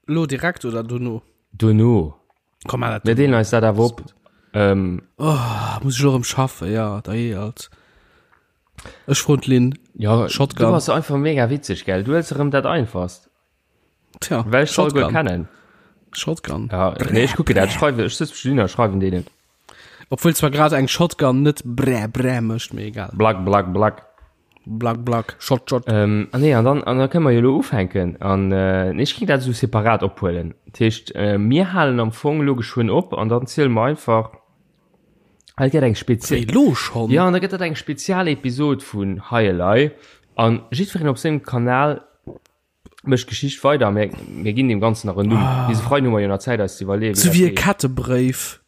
Lo direkt oder dono? Dono. Komm mal, Mir deelen eis dat awer op. Ähm, oh, muss ich lo erëm schaffen, ja, da eh alt. Ech froen d'Lynn. Ja, Shotgun. Du bass einfach mega witzeg, gell? Du huels erëm dat einfachst. Tja, Well ech soll guer Shotgun. kennen. Shotgun. Ja, nee, ech kucke dat, schreiwe, ech sëtz Lynn a schreiwen deenen. Obwuel zwar grad eng Shotgun net brä brä mécht, mee egal. Black, black, black. Black, black, shot, shot. Ähm, ah nee, an dann, an da kënne mer jo elo ufänken. An äh, nee, ech géing dat esou separat ophuelen. Dat heescht, äh, mir halen am Fong elo geschwënn op an dann ziele mer einfach, ah, et gëtt eng Spezi Wéi, lo schonn? Ja, an da gëtt dat eng Spezialepisod vun Hei Elei. An jiddwereen op sengem Kanal mécht d'Geschicht weider. Mir, mir ginn deem Ganzen nach en Numm. Ah. Bis e Freiden hu mer jo nach Zäit, eis ze iwwerleeën, wéi Sou dat wéi e heescht. Kettebrëif.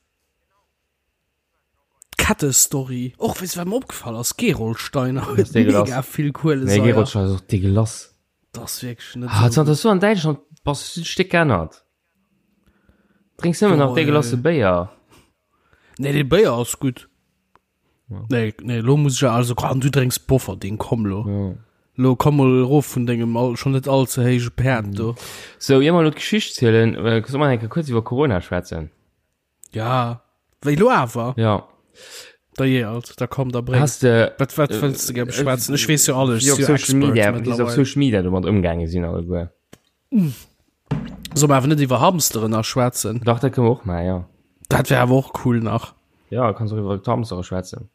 D'Kettestory. Och weess wat mer opgefall ass, Gerolsteiner huet mega vill Kuelesaier. Nee, Gerolsteiner ass och degueulass. Dat ass wierklech net ah, zanter du an Däitschland bass hues du dech déck geännert. Drénks nëmmen nach degueulasse Béier. Nee, dee Béier ass gutt. Nee, nee, lo muss ech also an du drénks Bofferding, komm lo. Ja. Lo komm mol erof vun dengem all, schon net all ze héije Päerd do. Sou, ier mer elo d'Geschicht zielen, solle mer eng Kéier kuerz iwwer Corona schwätzen? Ja, wéi lo awer? Ja. Da je alt, da komm, da bréng. Hast de, Wat, wat wëlls de gär beschwätzen? Ech weess jo alles, wéi ech op si jo Social Expert Media, wéi se op mittlerweile. Social Media domat ëmgaange sinn alleguer. Soll mer awer net iwwer Hamsteren nach schwätzen? Dach, dat kënne mer och maachen, ja. Dat wär awer och cool nach. Ja, kanns och iwwer d'Hamstere schwätzen.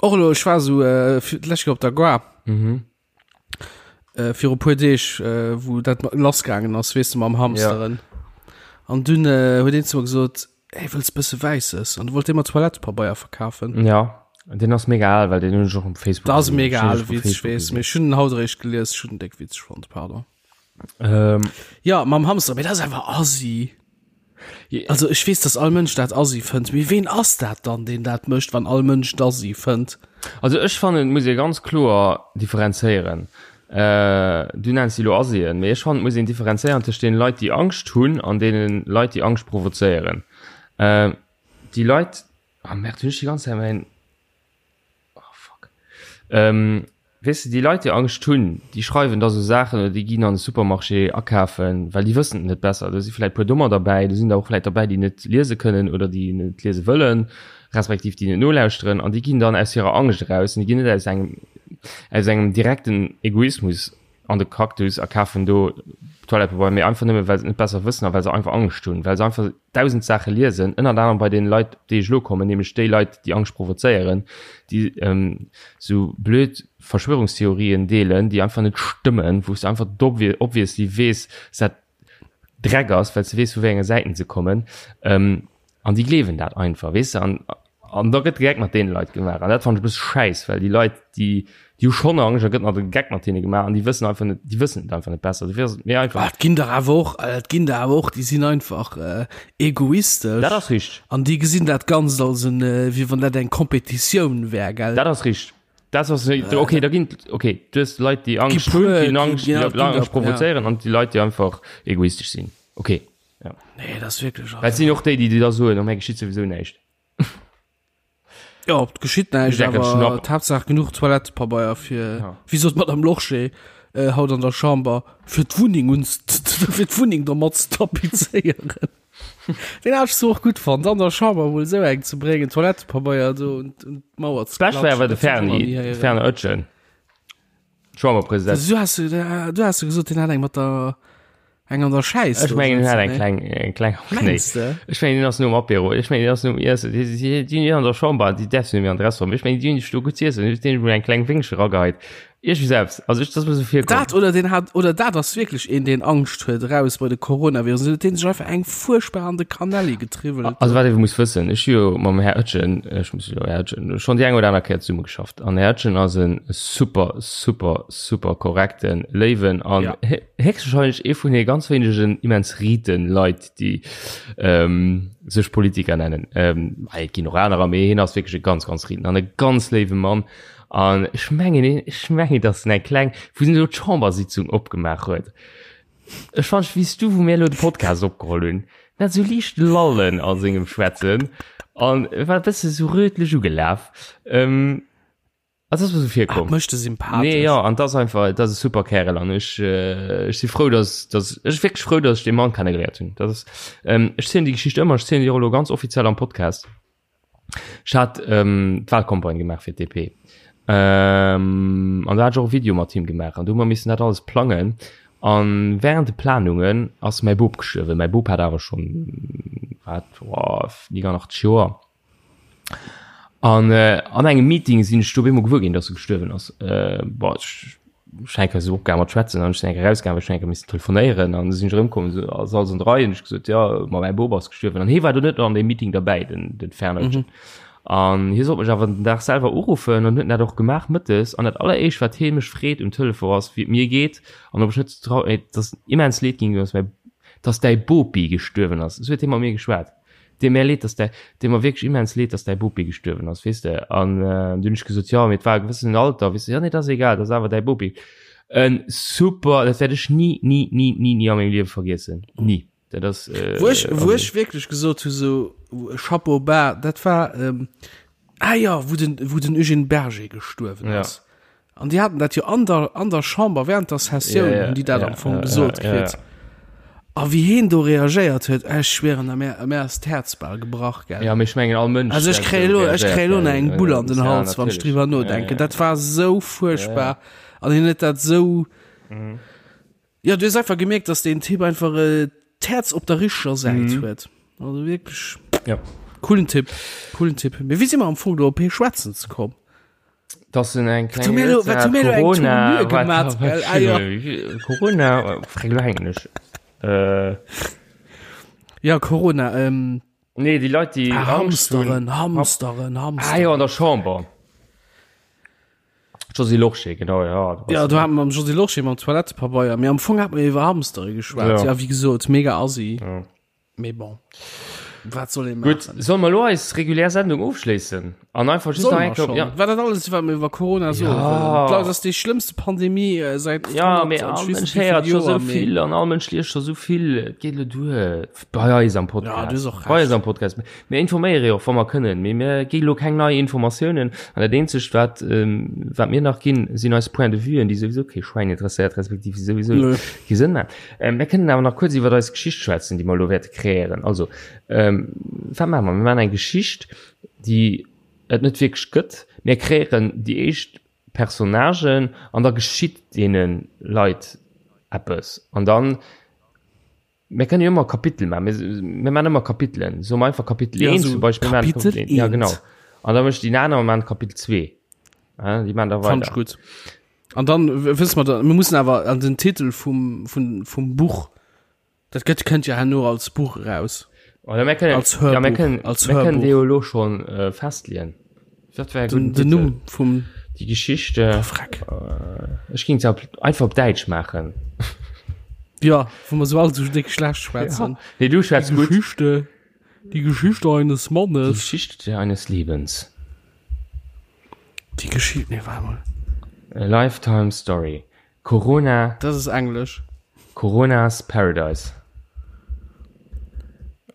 Och elo, ech war esou äh, fir d'lescht Kéier op der Gare. Mhm. Äh, viru puer Deeg, äh, wou dat lassgaangen ass, weess de, mam Hamsteren. Ja. An dunn äh, huet een zu mir gesot, hey, wëlls bësse Wäisses? An du wollt dee mer Toilettepabeier verkafen. Ja, den ass mega al, well den hunn ech och um Facebook Dat ass gesinn. mega Ech hunn ale och op Witz, ech Facebook weess, gesinn. mee ech hunn en haut eréischt gelies, ech hunn en déck witzeg fonnt, pardon. Ähm, Ja, mam Hamster, mee dat ass einfach assi. Also ech weess, dass all Mënsch dat assi fënnt, mee ween ass dat dann, deen dat mécht, wann all Mënsch et assi fënnt? Also ech fannen, et muss ee ganz kloer differenzéieren. Du nenns déi elo Assien, mee ech fannen, et muss een differenzéieren tëscht deene Leit, déi Angscht hunn an deene Leit, déi Angscht provozéieren. Déi Leit, ah merde, hunn ech déi ganz Zäit mäin. Oh fuck. Ähm, weess de, déi Leit, déi Angscht hunn, déi schreiwen da sou Saachen oder déi ginn an de Supermarché akafen, well déi wëssen et net besser. Do si vläit puer Dommer derbäi, do sinn der och vläit derbäi, déi net liese kënnen oder déi net liese wëllen, respektiv déi net nolauschteren an déi ginn dann aus hirer Angscht eraus an déi ginn net aus engem, aus engem direkten Egoismus an de Cactus a kafen do Toilettepabeier, mee einfach nëmme well se et net besser wëssen a well se einfach Angscht hunn, well se einfach dausend Saache liesen, ënnert anerem bei deene Leit, op déi ech elo kommen, nämlech déi Leit, déi Angscht provozéieren, déi esou blöd Verschwörungstheorien deelen, déi einfach net stëmmen, wou s de einfach obviously weess, dass dat Dreck ass, well s de weess, vu wéi enge Säiten se kommen. An déi gleewen dat einfach, weess de. An, an da gëtt de Geck mat deene Leit gemaach. An dat fannen ech e bësse schäiss, well déi Leit, déi, déi hu schonn Angscht, da gëtt nach de Geck mat hinne gemaach an déi wëssen einfach net, déi wëssen et einfach net besser. Dofir ass et mir einfach. Ah, et ginn der awer och, et ginn der awer och, déi sinn einfach egoistesch. Dat ass richteg. An déi gesinn dat Ganzt als en, wéi wann dat eng Kompetitioun wär, gell? Dat ass richteg. Dat ass, okay, da ginn, okay, du hues Leit, déi Angscht hunn, déi Angscht, déi Angscht provozéieren an déi Leit, déi einfach egoistesch sinn. Okay. Ja. Nee, das ist wirklich. Dat sinn och déi, déi da soen, oh, mir geschitt sowieso näischt. Ja, et geschitt näischt, awer d'Haaptsaach genuch Toilettepabeier fir, ja. wéi sot d'Madame Lorsché äh, haut an der Chamber, fir d'Wunneng uns, fir d'Wunneng domat ze tapizéieren. Den hat ech so och gutt fonnt, an der Chamber mol esou eng ze bréngen, Toilettepabeier do un d'Mauer ze klatschen. D'Bescht war awer de Ferni, de Fernand Oetjen. Chamberpresident. Du hast, du hast gesot, den hat eng mat der. Eng an der Schäiss. Ech mengen, hien hat eng kleng, eng kleng am Knéi. Mengst de? Ech mengen, hien ass nom Apéro. Ech mengen, hien ass nom Iessen. Déi, déi, déi hunn an der Chamber, déi däerfs du net méi an de Restaurant. Ech mengen, déi hunn sech do gutt z'iessen. Déi hunn emol eng kleng Wéngche erageheit. Iergendwéi selbst. Also ech, dat ass mir esou virkomm. Dat oder deen hat, oder dat ass wierklech een, deen Angscht huet eraus bei de Coronavirus. Huet deen sech einfach eng fuerchtbar an de Kanelli getriwwelt. Also wat ee muss wëssen, ech hu jo mam Här Oetjen, ech muss elo Här Oetjen, schonn déi eng oder aner Kéier zesummegeschafft. An Här Oetjen ass e super, super, super korrekten, léiwen an Ja. héchstwahrscheinlech ee vun de ganz wéinegen immens riten Leit, déi ähm, sech Politiker nennen. Ähm, et ginn och anerer, mee hien ass wierklech e ganz, ganz riten an e ganz léiwe Mann. An ech mengen, ech mengen, datt en eng kleng, wou en elo d'Chambersitzung opgemaach huet, ech fand, wéi s du, wou mir elo de Podcast opgeholl hunn, en hat esou liicht Lallen a sengem Schwätzen an e war e bësse sou rötlech ugelaf. Ähm, Also das ass mir sou virkomm. Ah, mécht e sympathesch. Nee, ja, an das einfach, das ass e super Kärel an ech, äh, ech si frou, dass, dass, ech wierklech frou, dass ech dee Mann kennegeléiert hunn. Das ass, ähm, ech zielen déi Geschicht ëmmer, ech zielen déi och elo ganz offiziell am Podcast. Ech hat ähm, d'Wahlcampagne gemaach fir d'DP. Ähm, an da hat ech och e Video mat him gemaach an du hu mer missen dat alles plangen. An während de Planungen ass mäi Bop gestuerwen. Mäi Bop hat awer schonn, wat, oh, 89 Joer. An äh, an engem Meeting sinn ech do op eemol gewuer ginn, dass e gestuerwen ass. Äh, boah, ech ech enke sou opgaangen mat schwätzen an ech sinn enke rausgaangen, well ech enke missen telefonéieren an sinn ech erëmkomm, so ass alles an der Rei an ech gesot, ja, ma mäi Bop ass gestuerwen. An hie war do net an deem Meeting derbäi, den, den Fernötchen. An hie sollt mech awer den Dag selwer uruffen an huet en dat och gemaach mëttes. An dat alleréischt, wat hie mech freet um Telefon ass, wéi et mir geet an ob ech net trau, dass immens leed ginn, dass mäi, dass däi Bopi gestuerwen ass. Esou huet hie mat mir geschwat. Deet mär leed, dass däi, deet mer wierklech immens leed, dass däi Bopi gestuerwen ass, weess de. An du hunn ech gesot, jo, mee et war e gewëssenen Alter, weess de. Jo, nee, dat ass egal, dat ass awer däi Bopi. En super, dat wäert ech ni, ni, ni, ni, ni a mengem Liewe vergiessen. Ni. Dat ass. Wou ech, wou ech wierklech gesot hu sou, Chapeau bas, dat war, ah jo, wou den, wou den Eugène Berger gestuerwen ass. An déi haten dat jo an der, an der Chamber während der Sessioun, yeah, hunn déi dat yeah, am Fong yeah, gesot yeah, kritt. Yeah. A wéi heen do reagéiert huet, ech schwieren, mär, mär ass d'Häerz bal gebrach, gell. Ja, mee ech mengen all Mënsch. Also ech kréie lo, ech kréie lo nach eng Bull an den Hals, wann ech driwwer nodenken. Dat war sou fuerchtbar. An hien huet dat sou. Mhm. Ja, du hues einfach gemierkt, dass deen Typ einfach äh, d'Häerz op der richteger Säit mhm. huet. Also wierklech. Ja. Coolen Typ, coolen Typ. Mee wéi si mer am Fong do op hee schwätzen ze komm? Dass en eng kleng Corona Corona frag lo hänken ech. Äh. Ja Corona ähm, Nee déi Leit déi ah, Hamsteren Hamsteren Hamsteren. Ah jo an der Chamber. Josy Lorsché genau ja. Ja du hat mam Josy Lorsché mam Toilettepabeier, mee am Fong hat mer iwwer Hamstere geschwat. Ja wéi gesot mega assi. Ja. Mee bon, wat soll ee Gutt, maachen? solle mer elo eis regulär Sendung ofschléissen an einfach just Solle nach mer eng Kéier, schonn? ja. War dat alles, wat mer iwwer Corona soe Ja. wëllen? Dat ass déi schlëmmste Pandemie äh, säit Ja, 100 mee an all ech weess Mënsch net wéi héiert vill scho sou Joer, mee vill an all Mënsch liest scho sou vill. Et geet elo duer bei eis am Ja, Podcast. du hues och Bei eis Recht. am Podcast. Mir informéiere jo och, wa mer kënnen, mee mir gi elo keng nei Informatiounen. An dat eenzegt, wat, ähm, wat mir nach ginn, sinn eis Point de vuen, déi souwisou kee Schwäin interesséiert, respektiv déi souwisou Nö. kee Sënn maachen. Ähm, mir kënnen awer nach kuerz iwwer eis Geschicht schwätzen, déi mer elo wäerte kreéieren. Also, ähm, wat maache mer? Mir maachen eng Geschicht, déi et net wierklech gëtt. Mir kreéieren déi éischt Personnagen an da geschitt deene Leit eppes. An dann, mir kënnen jo ëmmer Kapitel maachen. Mir, mir maachen ëmmer Kapitelen. Soe mer einfach Kapitel Ja, 1 so zum Beispill. Mir maachen Kapitel Kapitel 1. Ja, 1. genau. An da mécht déi aner maachen Kapitel 2. Ja, déi maachen da Fand ich weider. gut. An dann wësse mer da, mir mussen awer an den Titel vum, vum, vum Buch, dat gëtt, kënnt ja herno als Buch eraus. Oder mir kënnen, Als Hörbuch, ja, mir kënnen, als mir kënnen Hörbuch. dee jo elo schonn äh, festleeën. Dat wär e Den, gudden den Titel. Numm vum Die Geschichte. Oh, Freck. Äh, ech ging se einfach op Däitsch maachen. Ja, wou mer sou all sou déck schlecht schwätzen. Ja. Nee, du schwätz Die gut. Geschichte, die Geschichte eines Die Mannes. Geschichte eines Lebens. Die Geschichte, nee, warte mal. A Lifetime Story. Corona. Das ist Englisch. Coronas Paradise.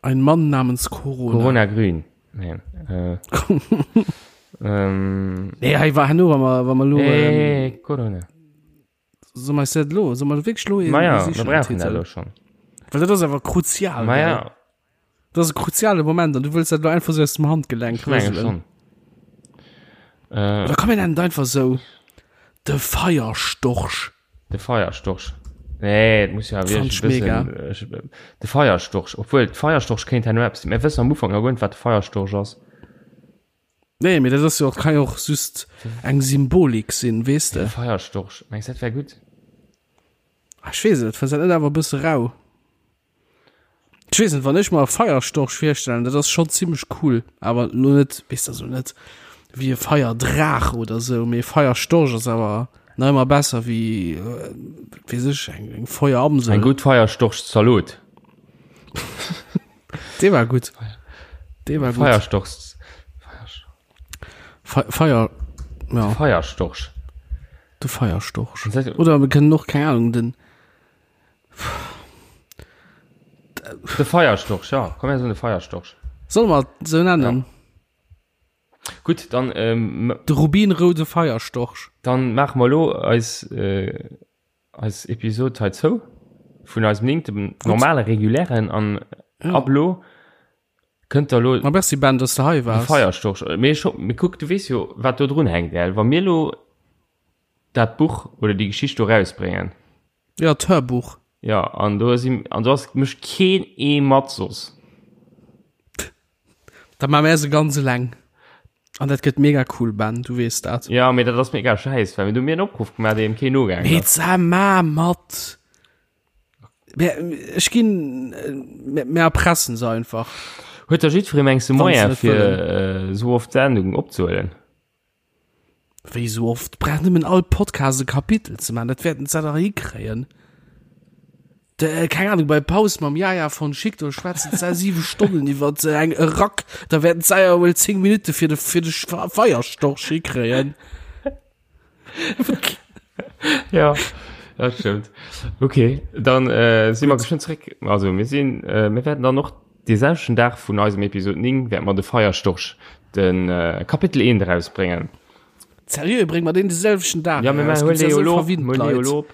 Ein Mann namens Corona. Corona Grün. Nee. Äh, ähm, nee, hey, war nur, wa mer, wa mer lo, nee, ähm, Corona. So mer dat lo, so mer wierklech lo Ma ja, mir brauchen dat lo schon. Well dat ass awer kruzial. Ma ja. Dat ass e kruziale Moment an du wëlls dat lo einfach sou aus dem Handgelenk Ich menge rëselen. schon. Äh, Oder komm mir nennen et einfach sou, de Feierstorch. De Feierstorch. Nee, et muss jo awer wierklech e bëssen, de Feierstorch, obwuel de Feierstorch kéint herno eppes sinn. Mir wëssen am Ufank nach guer net, wat de Feierstorch ass. Nee, mee dat ass jo och, kann jo och just eng Symbolik sinn, weess de. De Feierstorch, mengs dat wär gutt? Ah, ech weess et, fënns dat net awer e bësse rau? Ech weess net, wann ech mer e Feierstorch virstellen, dat ass schonn zimmlech cool, awer lo net, weess de, also net wéi e Feierdraach oder sou, mee e Feierstorch ass awer nach ëmmer besser wéi, weess ech, eng, eng Feueramsel. Eng gutt Feierstorchzalot. Dee war gutt. Dee war gutt. Feierstorchs. Fe Feier, ja. Feierstorch. De Feierstorch. Oder mir kënnen och, keng Ahnung, den. De Feierstorch, ja. Komm, mir soen de Feierstorch. Solle mer et esou nennen? Ja. Gutt, dann. Ähm, de rubinroude Feierstorch. Dann maache mer elo eis, äh, eis Episod hei zou. Vun eisem néngte normale, regulären an ja. ab elo kënnt der elo. Ma merci Ben, dass de hei waars. De Feierstorch. Mee ech hopp, mee kuck, du weess jo, wat do drun hänkt, gell? Wa mir elo dat Buch oder déi Geschicht do rausbréngen. Ja, d'Hörbuch. Ja, an do sinn, an do ass mécht keen ee mat soss. Da maache mär se ganz eleng. An dat gëtt mega cool, Ben, du weess dat. Ja, mee dat ass mega schäiss, well mir do mir en Opruff gemaach, deem keen nogaangen Mee ass. sa ma mat. Mä ech ginn, mä mir erpressen se einfach. Huet da jiddweree mengs de Wann se Moyen net fir wëllen. esou oft Sendungen opzehuelen? Wéi sou oft? Brauch nëmmen all Podcast e Kapitel ze maachen, dat wäerten se dach hikréien. De, keng Ahnung, bei Paus mam Yaya von Schick, do schwätzen se 7 Stonnen iwwer eng e Rack, da wäerten se ja wuel 10 Minutte fir de, fir de Feierstorch hikréien. Ja, dat stëmmt. Okay, dann äh, si mer geschwënn zréck. Also mir sinn, äh, mir wäerten dann och dee selwechten Dag vun eisem Episod 9 wäerte mer de Feierstorch, den äh, Kapitel 1 erausbréngen. Seriö, brénge mer deen de selwechten Dag Ja, mir eraus? huelen Gibt's da dee jo sou elo op, verwinnt mir huelen dee jo Leit? elo op.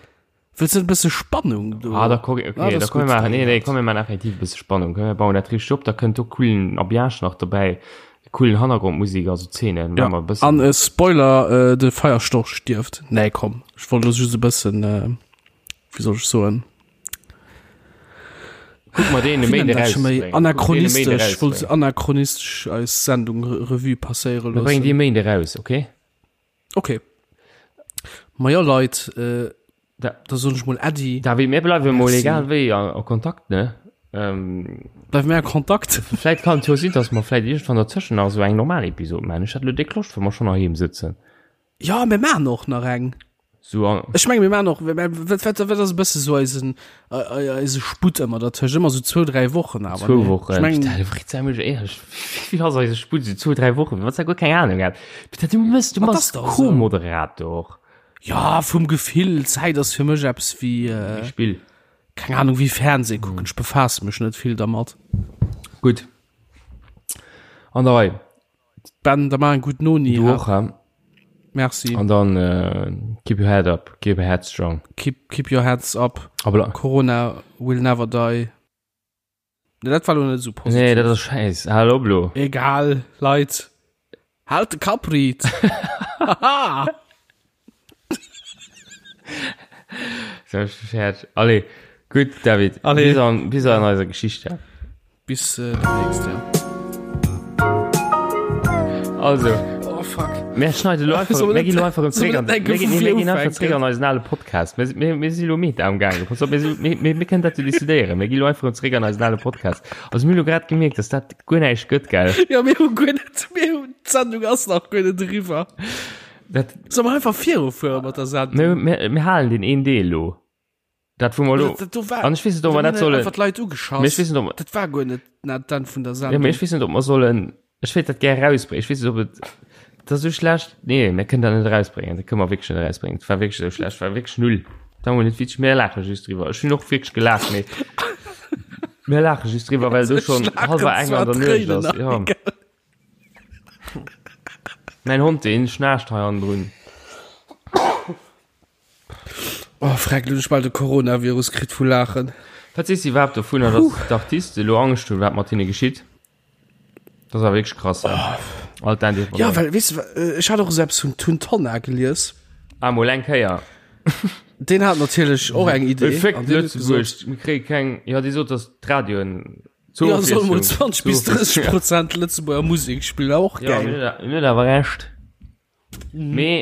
Wëlls du net e bësse Spannung do? Ah, da komm, okay, Ah, da das komm mir gut, maachen, nee, nee, dat. komm mir maachen effektiv e bësse Spannung. Komm mir bauen dat richteg op, da kënnt do coolen Ambiance nach dobäi, coolen Hannergrondmusik, also Zeenen, Ja, maache mer e bëssen. an äh, Spoiler, äh, de Feierstorch stierft. Nee, komm, ech wollt lo just e bëssen, äh, wéi soll ech soen? Kuck mer deen e Wéi Méinde nennt dat scho méi? erausbréngen. Kuck deen e Méinde Anachronistesch, ech wollt erausbréngen. anachronistesch eis Sendung Revue passéiere Mir bréngen dee loossen. Méinde eraus, okay? Okay. Ma jo, Leit, äh, Da, da soen ech mol Äddi. David, mir bleiwe mol Merci. egal wéi a, a Kontakt, ne? Ähm, Bleiwe mir a Kontakt. vläit kann et jo sinn, dass mer vläit iergendwann derzëschen nach esou eng normal Episod maachen. Ech hätt elo déck Loscht, wa mer schonn heiheem sëtzen. Ja, mir maachen och nach eng. Sou an. Ech menge mir maachen och, wat, wat, wat ass e bësse sou eisen, eise Sputt ëmmer dertëscht? Ëmmer sou zwou, dräi Wochen awer, Zwou ne? Wochen. Ech mengen. Putain, Fritz, sei mol éierlech, wéi vill ass eise Sputt? Sou zwou, dräi Wochen? Wann s de guer keng Ahnung hätt. Putain, du mëss, du Ma, bass dat ass dach esou. Co-Moderator. Ja, vum Gefill, Zäit ass fir mech eppes wéi, Wéi Spill. keng Ahnung, wéi Fernseh kucken. Ech befaasse mech net vill dermat. Gutt. An der Rei. Ben, da maach eng gutt Noni. Du och, hä? Merci. An dann äh, keep your head up, keep your head strong. Keep, keep your heads up. Aber Corona will never die. Nee, dat war lo net sou positiv. Nee, dat ass scheiß. Hal op lo. Egal, Leit. Halt de Kapp riit. Haha. So, Scherz. Allez, gutt, David. Allez. Bis an, bis an eiser Geschichte. Bis äh, demnächst, ja. Also. Oh fuck. Mir schneiden lo einfach, Soll mir net- ginn lo einfach erëm soll zréck net an, denken, mir ginn, vu mir ginn vir einfach zréck an eisen ale Podcast. Mir, mir, mir si lo meta am Gaangen. Pass op, mir, si- mir, mir, mir kënnen dat jo decidéieren. Mir ginn lo einfach erëm zréck an eisen ale Podcast. Also mir hu lo grad gemierkt, dass dat guer näischt gëtt, gell? Ja, mir hu guer net, mir hu, d'Sendung ass nach guer net eriwwer. Dat, Soll mer einfach virufuere mat der Sendung? mir, mir, mir halen den een Deel lo. Dat wou mer lo. Dat, dat do war, An ech weess net, ob mer dat sollen. Einfach d'Leit ugeschass. Mee ech weess net, ob mer. Dat war guer net na d'Enn vun der Ja, mee ech weess net, ob mer sollen. Ech wéilt dat gär erausbréngen. Ech weess net, ob et. Dat ass esou schlecht. Nee, mir kënnen dat net erausbréngen. Dat kënne mer wierklech net erausbréngen. Dat war wierklech esou schlecht. War wierklech null. Dat war mol net witzeg. Mir laache just driwwer. Ech hunn och wierklech gelaacht, mee. Mir laache just driwwer, well do schonn hallwer eng an der Nuecht ass. Ja. Mäin Hond, deen schnaarcht hei hannendrun. Oh, freck, lo hunn ech bal de Coronavirus kritt vu Laachen. Wat sees de iwwerhaapt dovunner, dass d'Artiste elo Angscht hunn, wat mat hinne geschitt? Dat ass awer wierklech krass, hä? All d'Indépendant. Ja, well, weess de, ech hat och esou eppes vun Tun Tonna gelies. Ah, mol eng Kéier. Deen hat natierlech och eng Idee. Féck Lëtzebuerg, mir kréie keng, jo dee sot, datt d'Radioen zur Ja, soll mol 20 bis 30 Prozent Lëtzebuerger Musek spillen, och geil. Ja, en huet awer Recht. Mhm. Mee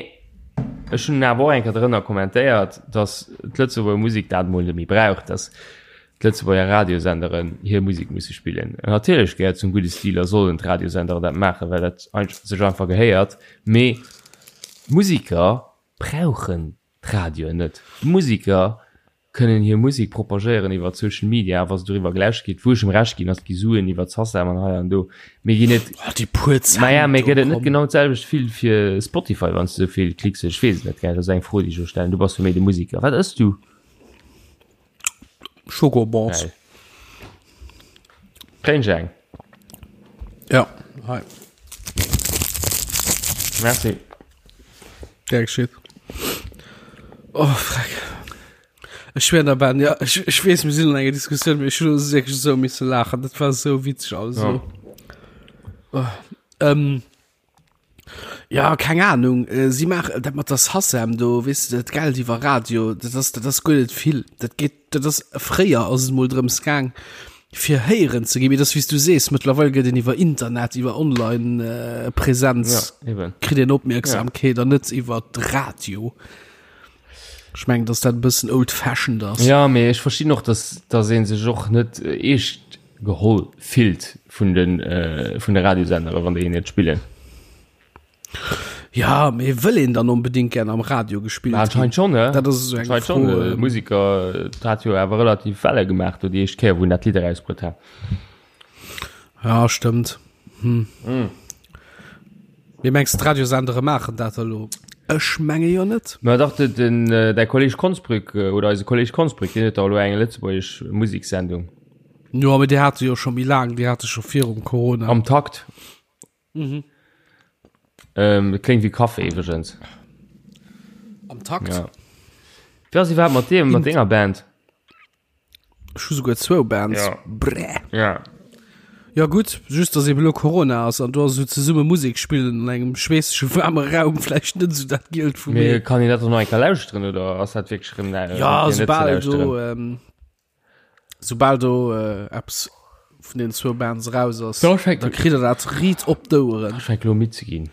ech hunn awer och eng Kéier drënner kommentéiert, datt d'Lëtzebuerger Musek dat mol net méi brauch, datt d'Lëtzebuerger Radiosenderen hir Musek musse spillen. Natierlech gehéiert zum gudde Stil a sollen d'Radiosenderen dat maachen, well dat sech einfach gehéiert. Mee d'Musiker brauchen d'Radioen net. D'Musiker kënnen hir Musek propagéieren iwwer Social Media, wa se doriwwer gelauschtert ginn, wou ech em Recht ginn, ass, et gi Suen iwwer d'Sacem an hei an do, mee ginn et, Oh, déi puer Cent maja, mee do, gëtt et net komm. genau d'selwecht vill fir Spotify, wann s de esou vill Klicks hues? Ech weess et net, gell, dat ass eng Fro, déi ech elo stellen, du bass jo méi de Musiker. Wat ëss du? Schokobons. Geil. Kréien ech eng? Ja, hei. Merci. Gär geschitt. Oh, freck. Ech schwéier der Ben, ja, ech, ech weess, mir sinn an enger Diskussioun, mee ech hunn wierklech esou misse laachen. Dat war esou witzeg alles Ja. elo. Oh, ähm, ja, keng Ahnung. Äh, si maachen dat mat der SACEM do, weess de, dat Geld iwwer Radio, dat ass, dat ass guer net vill. Dat geet, dat ass, fréier ass et mol drëms gaang, fir héieren ze ginn, mee dat ass wéi s du sees, mëttlerweil gëtt een iwwer Internet, iwwer Online Präsenz Ja, eben. kritt een Opmierksamkeet an net iwwer Radio. Ech mengen, dass dat e bëssen old fashioned ass. Ja, mee ech verstinn och, dass, dass ee sech och net eescht geholl fillt vun de, vun de Radiosendere, wann déi een net spillen. Ja, mee wëll een dann onbedingt gern am Radio gespillt ginn? Anscheinend schon, ne? Dat ass esou eng Anscheinend schon. Fro. Äh, Musiker, dat hat jo awer relativ Welle gemaach, do déi éischt Kéier, wou en dat Lidd erausbruet hat. Ja, stëmmt. Hm. Mm. Mee mengs de, d'Radiosendere maachen dat elo? Ech menge jo net. Ma dach, de, den, äh, däi Kolleg Konsbrück, äh, oder eise Kolleg Konsbrück, deen huet da elo eng lëtzebuergesch Museksendung. Jo, mee déi hate jo scho méi laang, déi hate scho virum Corona. Am Takt. Mhm. Ähm, klingt wie Kaffee iwwregens. Am Takt? Ja. Wie ass iwwerhaapt mat deem, mat denger Band? Ech hu souguer zwou Bands. Ja. Bräh. Ja. Ja gutt, just dass eben elo Corona ass an do ass esou zesumme Musek spillen an engem schweessege waarme Raum vläicht net esou dat Gielt vum Mee Ee. kann een dat och nach eng Kéier lauschteren oder ass dat wierklech erëm nä- Ja, fir net ze soubal do, lauschteren? ähm, Soubal do äh, eppes vun den zwou Bands raus ass, Da schenkt- da kritt der dat riit op d'Oueren. Ech fänk lo midd ze ginn.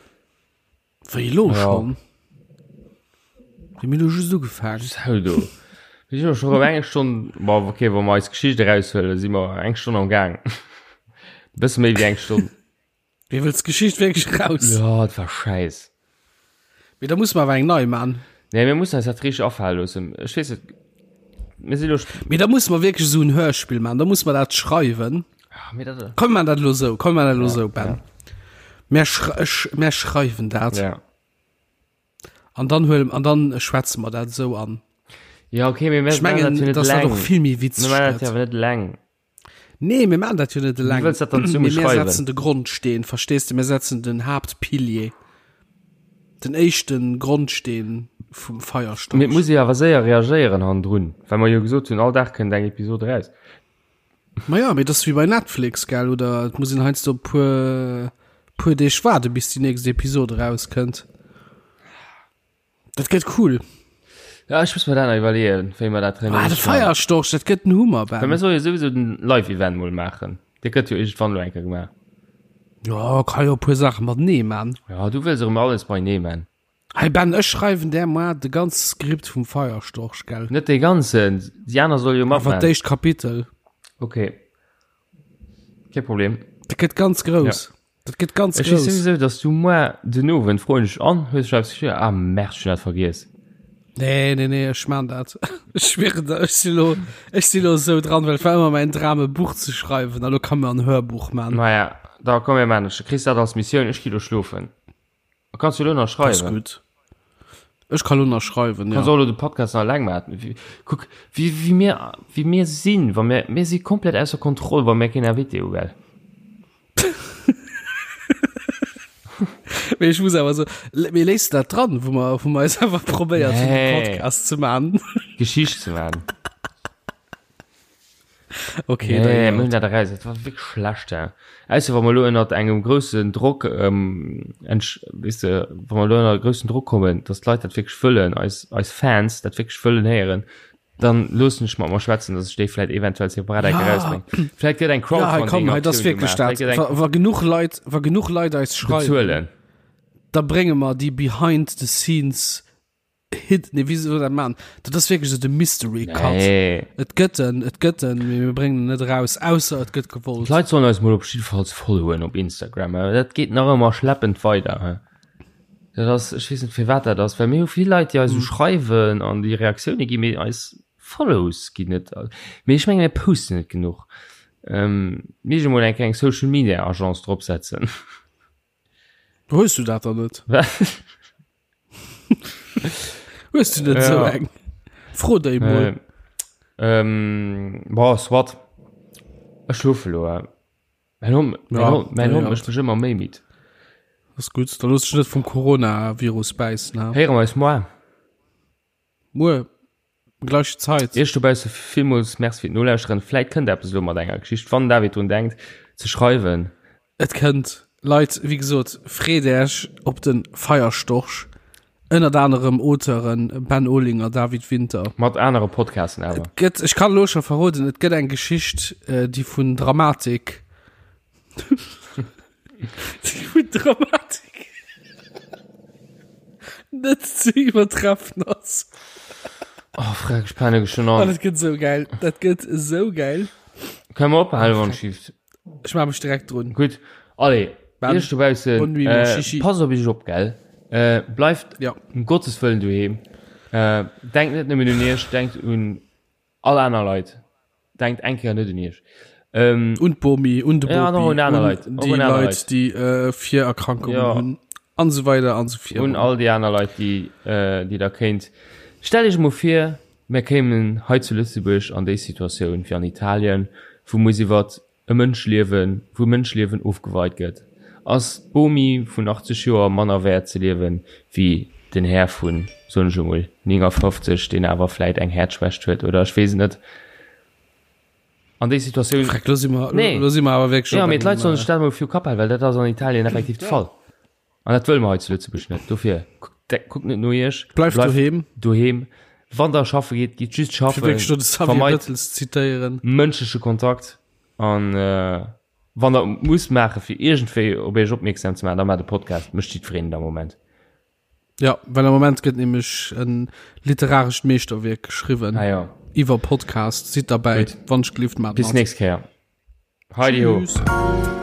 Wéi elo Ja. schon? Mir hunn elo just ugefaangen. Sau do. Mir sinn jo scho rëm eng Stonn, bon, okay, wa mer eis Geschicht eraushuelen, si mer eng Stonn am Gaang. Bësse méi wéi eng Stonn. Wéi wëlls d'Geschicht wierklech raus? Ja, et war schäiss. Mee da muss mer awer eng nei man. Nee, mir mussen eis dat richteg afale loossen. Ech weess net, mir si lo. Mee da muss mer wierklech esou en Hörspill man, da muss mer dat schreiwen. Ah, mee dat. Komm mir man dat elo esou, komm mir man dat elo Ja, esou, Ben. Mir schrei ech, mir schreiwen dat. Ja. An dann huelen, an dann schwätze mer dat esou an. Ja, okay, mee mir Ech mengen, dass dat och vill méi witzeg Mir man dat gëtt. jo awer net eleng. Nee, mir maachen dat jo net eleng. Wéi wëlls dat dann zesumme Mee mir schreiwen? setzen de Grondsteen, verstees de? Mir setzen den Haaptpilier. Den éischten Grondsteen vum Feierstorch. Mee et muss ee awer séier reagéieren hannendrun, well mer jo gesot hunn, all Dag kënnt eng Episod eraus. Ma ja, mee dat ass wéi bei Netflix, gell? Oder et muss een heiansdo e puer, puer Deeg waarde bis déi nächst Episod erauskënnt. Dat gëtt cool. Ja, ech muss mir dat nach iwwerleeën, wéi mer dat Ah, de Feierstorch, dat gëtt en Hummer, Ben. Well mir solle jo souwisou den Live-Event mol maachen. Dee gëtt jo iergendwann elo eng Kéier gemaach. Ja, ka jo e puer Saache matenee man. Ja, du wëlls erëm alles beienee man. Hey Ben, ech schreiwen där moar de ganze Skript vum Feierstorch, gell? Net dee ganzen, déi aner solle jo Awer matman. d'éischt Kapitel. Okay. Kee Problem. Dat gëtt ganz grouss. Ja. Dat gëtt ganz Ech weess grouss. souwisou, dass du moar den Owend froen ech an, hues du eppes geschriwwen? Ah merde, ech hunn dat vergiess. Nee, nee, nee, ech maan dat. Ech schwieren der, ech si lo, ech si lo esou dran, well et war ëmmer mäin Dram e Buch ze schreiwen, a lo kann mer en Hörbuch maan. Maja, da komm mir maan, du kriss dat als Missioun, ech gi lo schlofen. Kanns du lo nach Das schreiwen? gutt. Ech ka lo nach schreiwen, Kanns ja. och lo de Podcast nach eleng maachen. Wie- Kuck, wéi, wéi mir, wéi mir sinn, wa mir, mir si komplett ausser Kontroll, wa mir keen Invité hu, gell? Mee ech muss awer so, mee léiss du dat dran, wou mer, wou mer eis einfach probéiert hunn, Nee. de Podcast ze maachen? Geschicht ze maachen. Okay, nee, mir hunn dat eraus. Dat war wierklech schlecht. Ja. Ausser wa mer elo ënnert engem groussen Drock, ähm, entsch, weess de, wa mer elo ënner groussen Drock kommen, dass d'Leit dat wierklech wëllen, eis, eis Fans dat wierklech wëllen héieren, dann loossen ech mat mer schwätzen, dass ech déi vläit eventuell separat eng Ja. erausbréngen. Vläit gëtt eng Ja, hei komm, hei, das Crowdfunding-Aktioun wierklech gemaach. dat. Vläit gëtt eng Wa, wa genuch Leit, wa genuch Leit eis schreiwen, bezuelen. da brénge mer déi behind the scenes Hit, nee, wéi soll dat man? Dat ass wierklech esou de Mystery Cut. Nee. Et gëtt en, et gëtt en, mee mir bréngen en net eraus, ausser et gëtt gewollt. D'Leit sollen eis mol op jiddefalls followen op Instagram. äh, Dat geet nach ëmmer schleppend weider. hä? Dat ass, ech weess net firwat dat ass, well mir hu vill Leit, déi eis esou Mm. schreiwen an déi Reaktioune ginn, mee eis Follows ginn net. Mee ech menge mir posten net genuch. Ähm, mir mol eng kleng Social Media Agence dropsetzen. Hues du dat dann net? Hues du net sou eng? Fro déi mol. Äh, ähm, boah, soit. Ech schlofe lo. Äh. Mein Hond, mein Ja, Hond, mein ja, Hond ja. mécht mech ëmmer méi midd. Ass gutt, da looss dech net vum Coronavirus bäissen. Ha? Héiere mer eis moar. Muer, gläich Zait. Iech dobausse villmools Merci fir d'Nolauschteren. Vläit kënnt eppes elo mat enger Geschicht, wann den David drun denkt ze schreiwen. Et kënnt. Leit, wéi gesot, freet Äech op de Feierstorch. Ënnert anerem Auteuren Ben Olinger, David Winter. Mat anere Podcasten awer. Et gëtt, ech kann elo scho verroden, et gëtt eng Geschicht, déi vun Dramatik, déi vun Dramatik net ze iwwertreffen ass. Oh, freck, ech penne schon An an. et gëtt esou gäil. Dat gëtt esou gäil. Kënne mer ophalen, wann et schieft? Ech maache mech direkt drun. Gutt, allez, Ben, Iech dobaussen, bonne nuit, mon äh, Chichi. passt op iech op, gell? Äh, bleift Ja. um Gottes Wëllen doheem. Äh, denkt net nëmmen un iech, denkt un all aner Leit. Denkt eng Kéier net un iech. Ähm, Un d'Bomi, un de Bopi, Ja, an och un aner Leit, och déi un aner Leit, Leit. déi äh, Virerkrankungen Ja. hunn, an esou weider an esou virun. un all déi aner Leit, déi, äh, déi der kéint. Stellt iech emol vir, Mir kéimen hei zu Lëtzebuerg an déi Situatioun wéi an Italien, wou muss iwwert e Mënschliewen, wou Mënschliewen ofgeweit gëtt. Ass d'Bomi vun 80 Joer manner wäert ze liewen wéi den Här vun, soen ech emol, 59, deen awer vläit eng Häerzschwächt huet oder ech weess et net. An déi Situatioun. Freck, lo si mer, Nee. lo si mer awer wierklech Jo, op mee d'Leit engem, sollen sech dat emol viru Kapp halen, well dat ass an Italien effektiv de Fall. An dat wëlle mer hei zu Lëtzebuerg net. Dofir, kuckt net no iech. Bleift doheem. Doheem. Wann der schaffe geet, gitt just schaffen. Fir wierklech do de Xavier Vermeit Bettel ze zitéieren. mënschleche Kontakt. An wann der et musst maachen, fir iergendwéi op iech opmierksam ze maachen, da maacht e Podcast. Mécht jiddwereen et am Moment. Ja, well am Moment gëtt nämlech e literarescht Meeschterwierk geschriwwen. Ah jo. Iwwer Podcast. Sidd derbäi. Gutt. Wann ech gelift, maacht Bis mat. nächst Kéier. Heidi ho. Tschüss.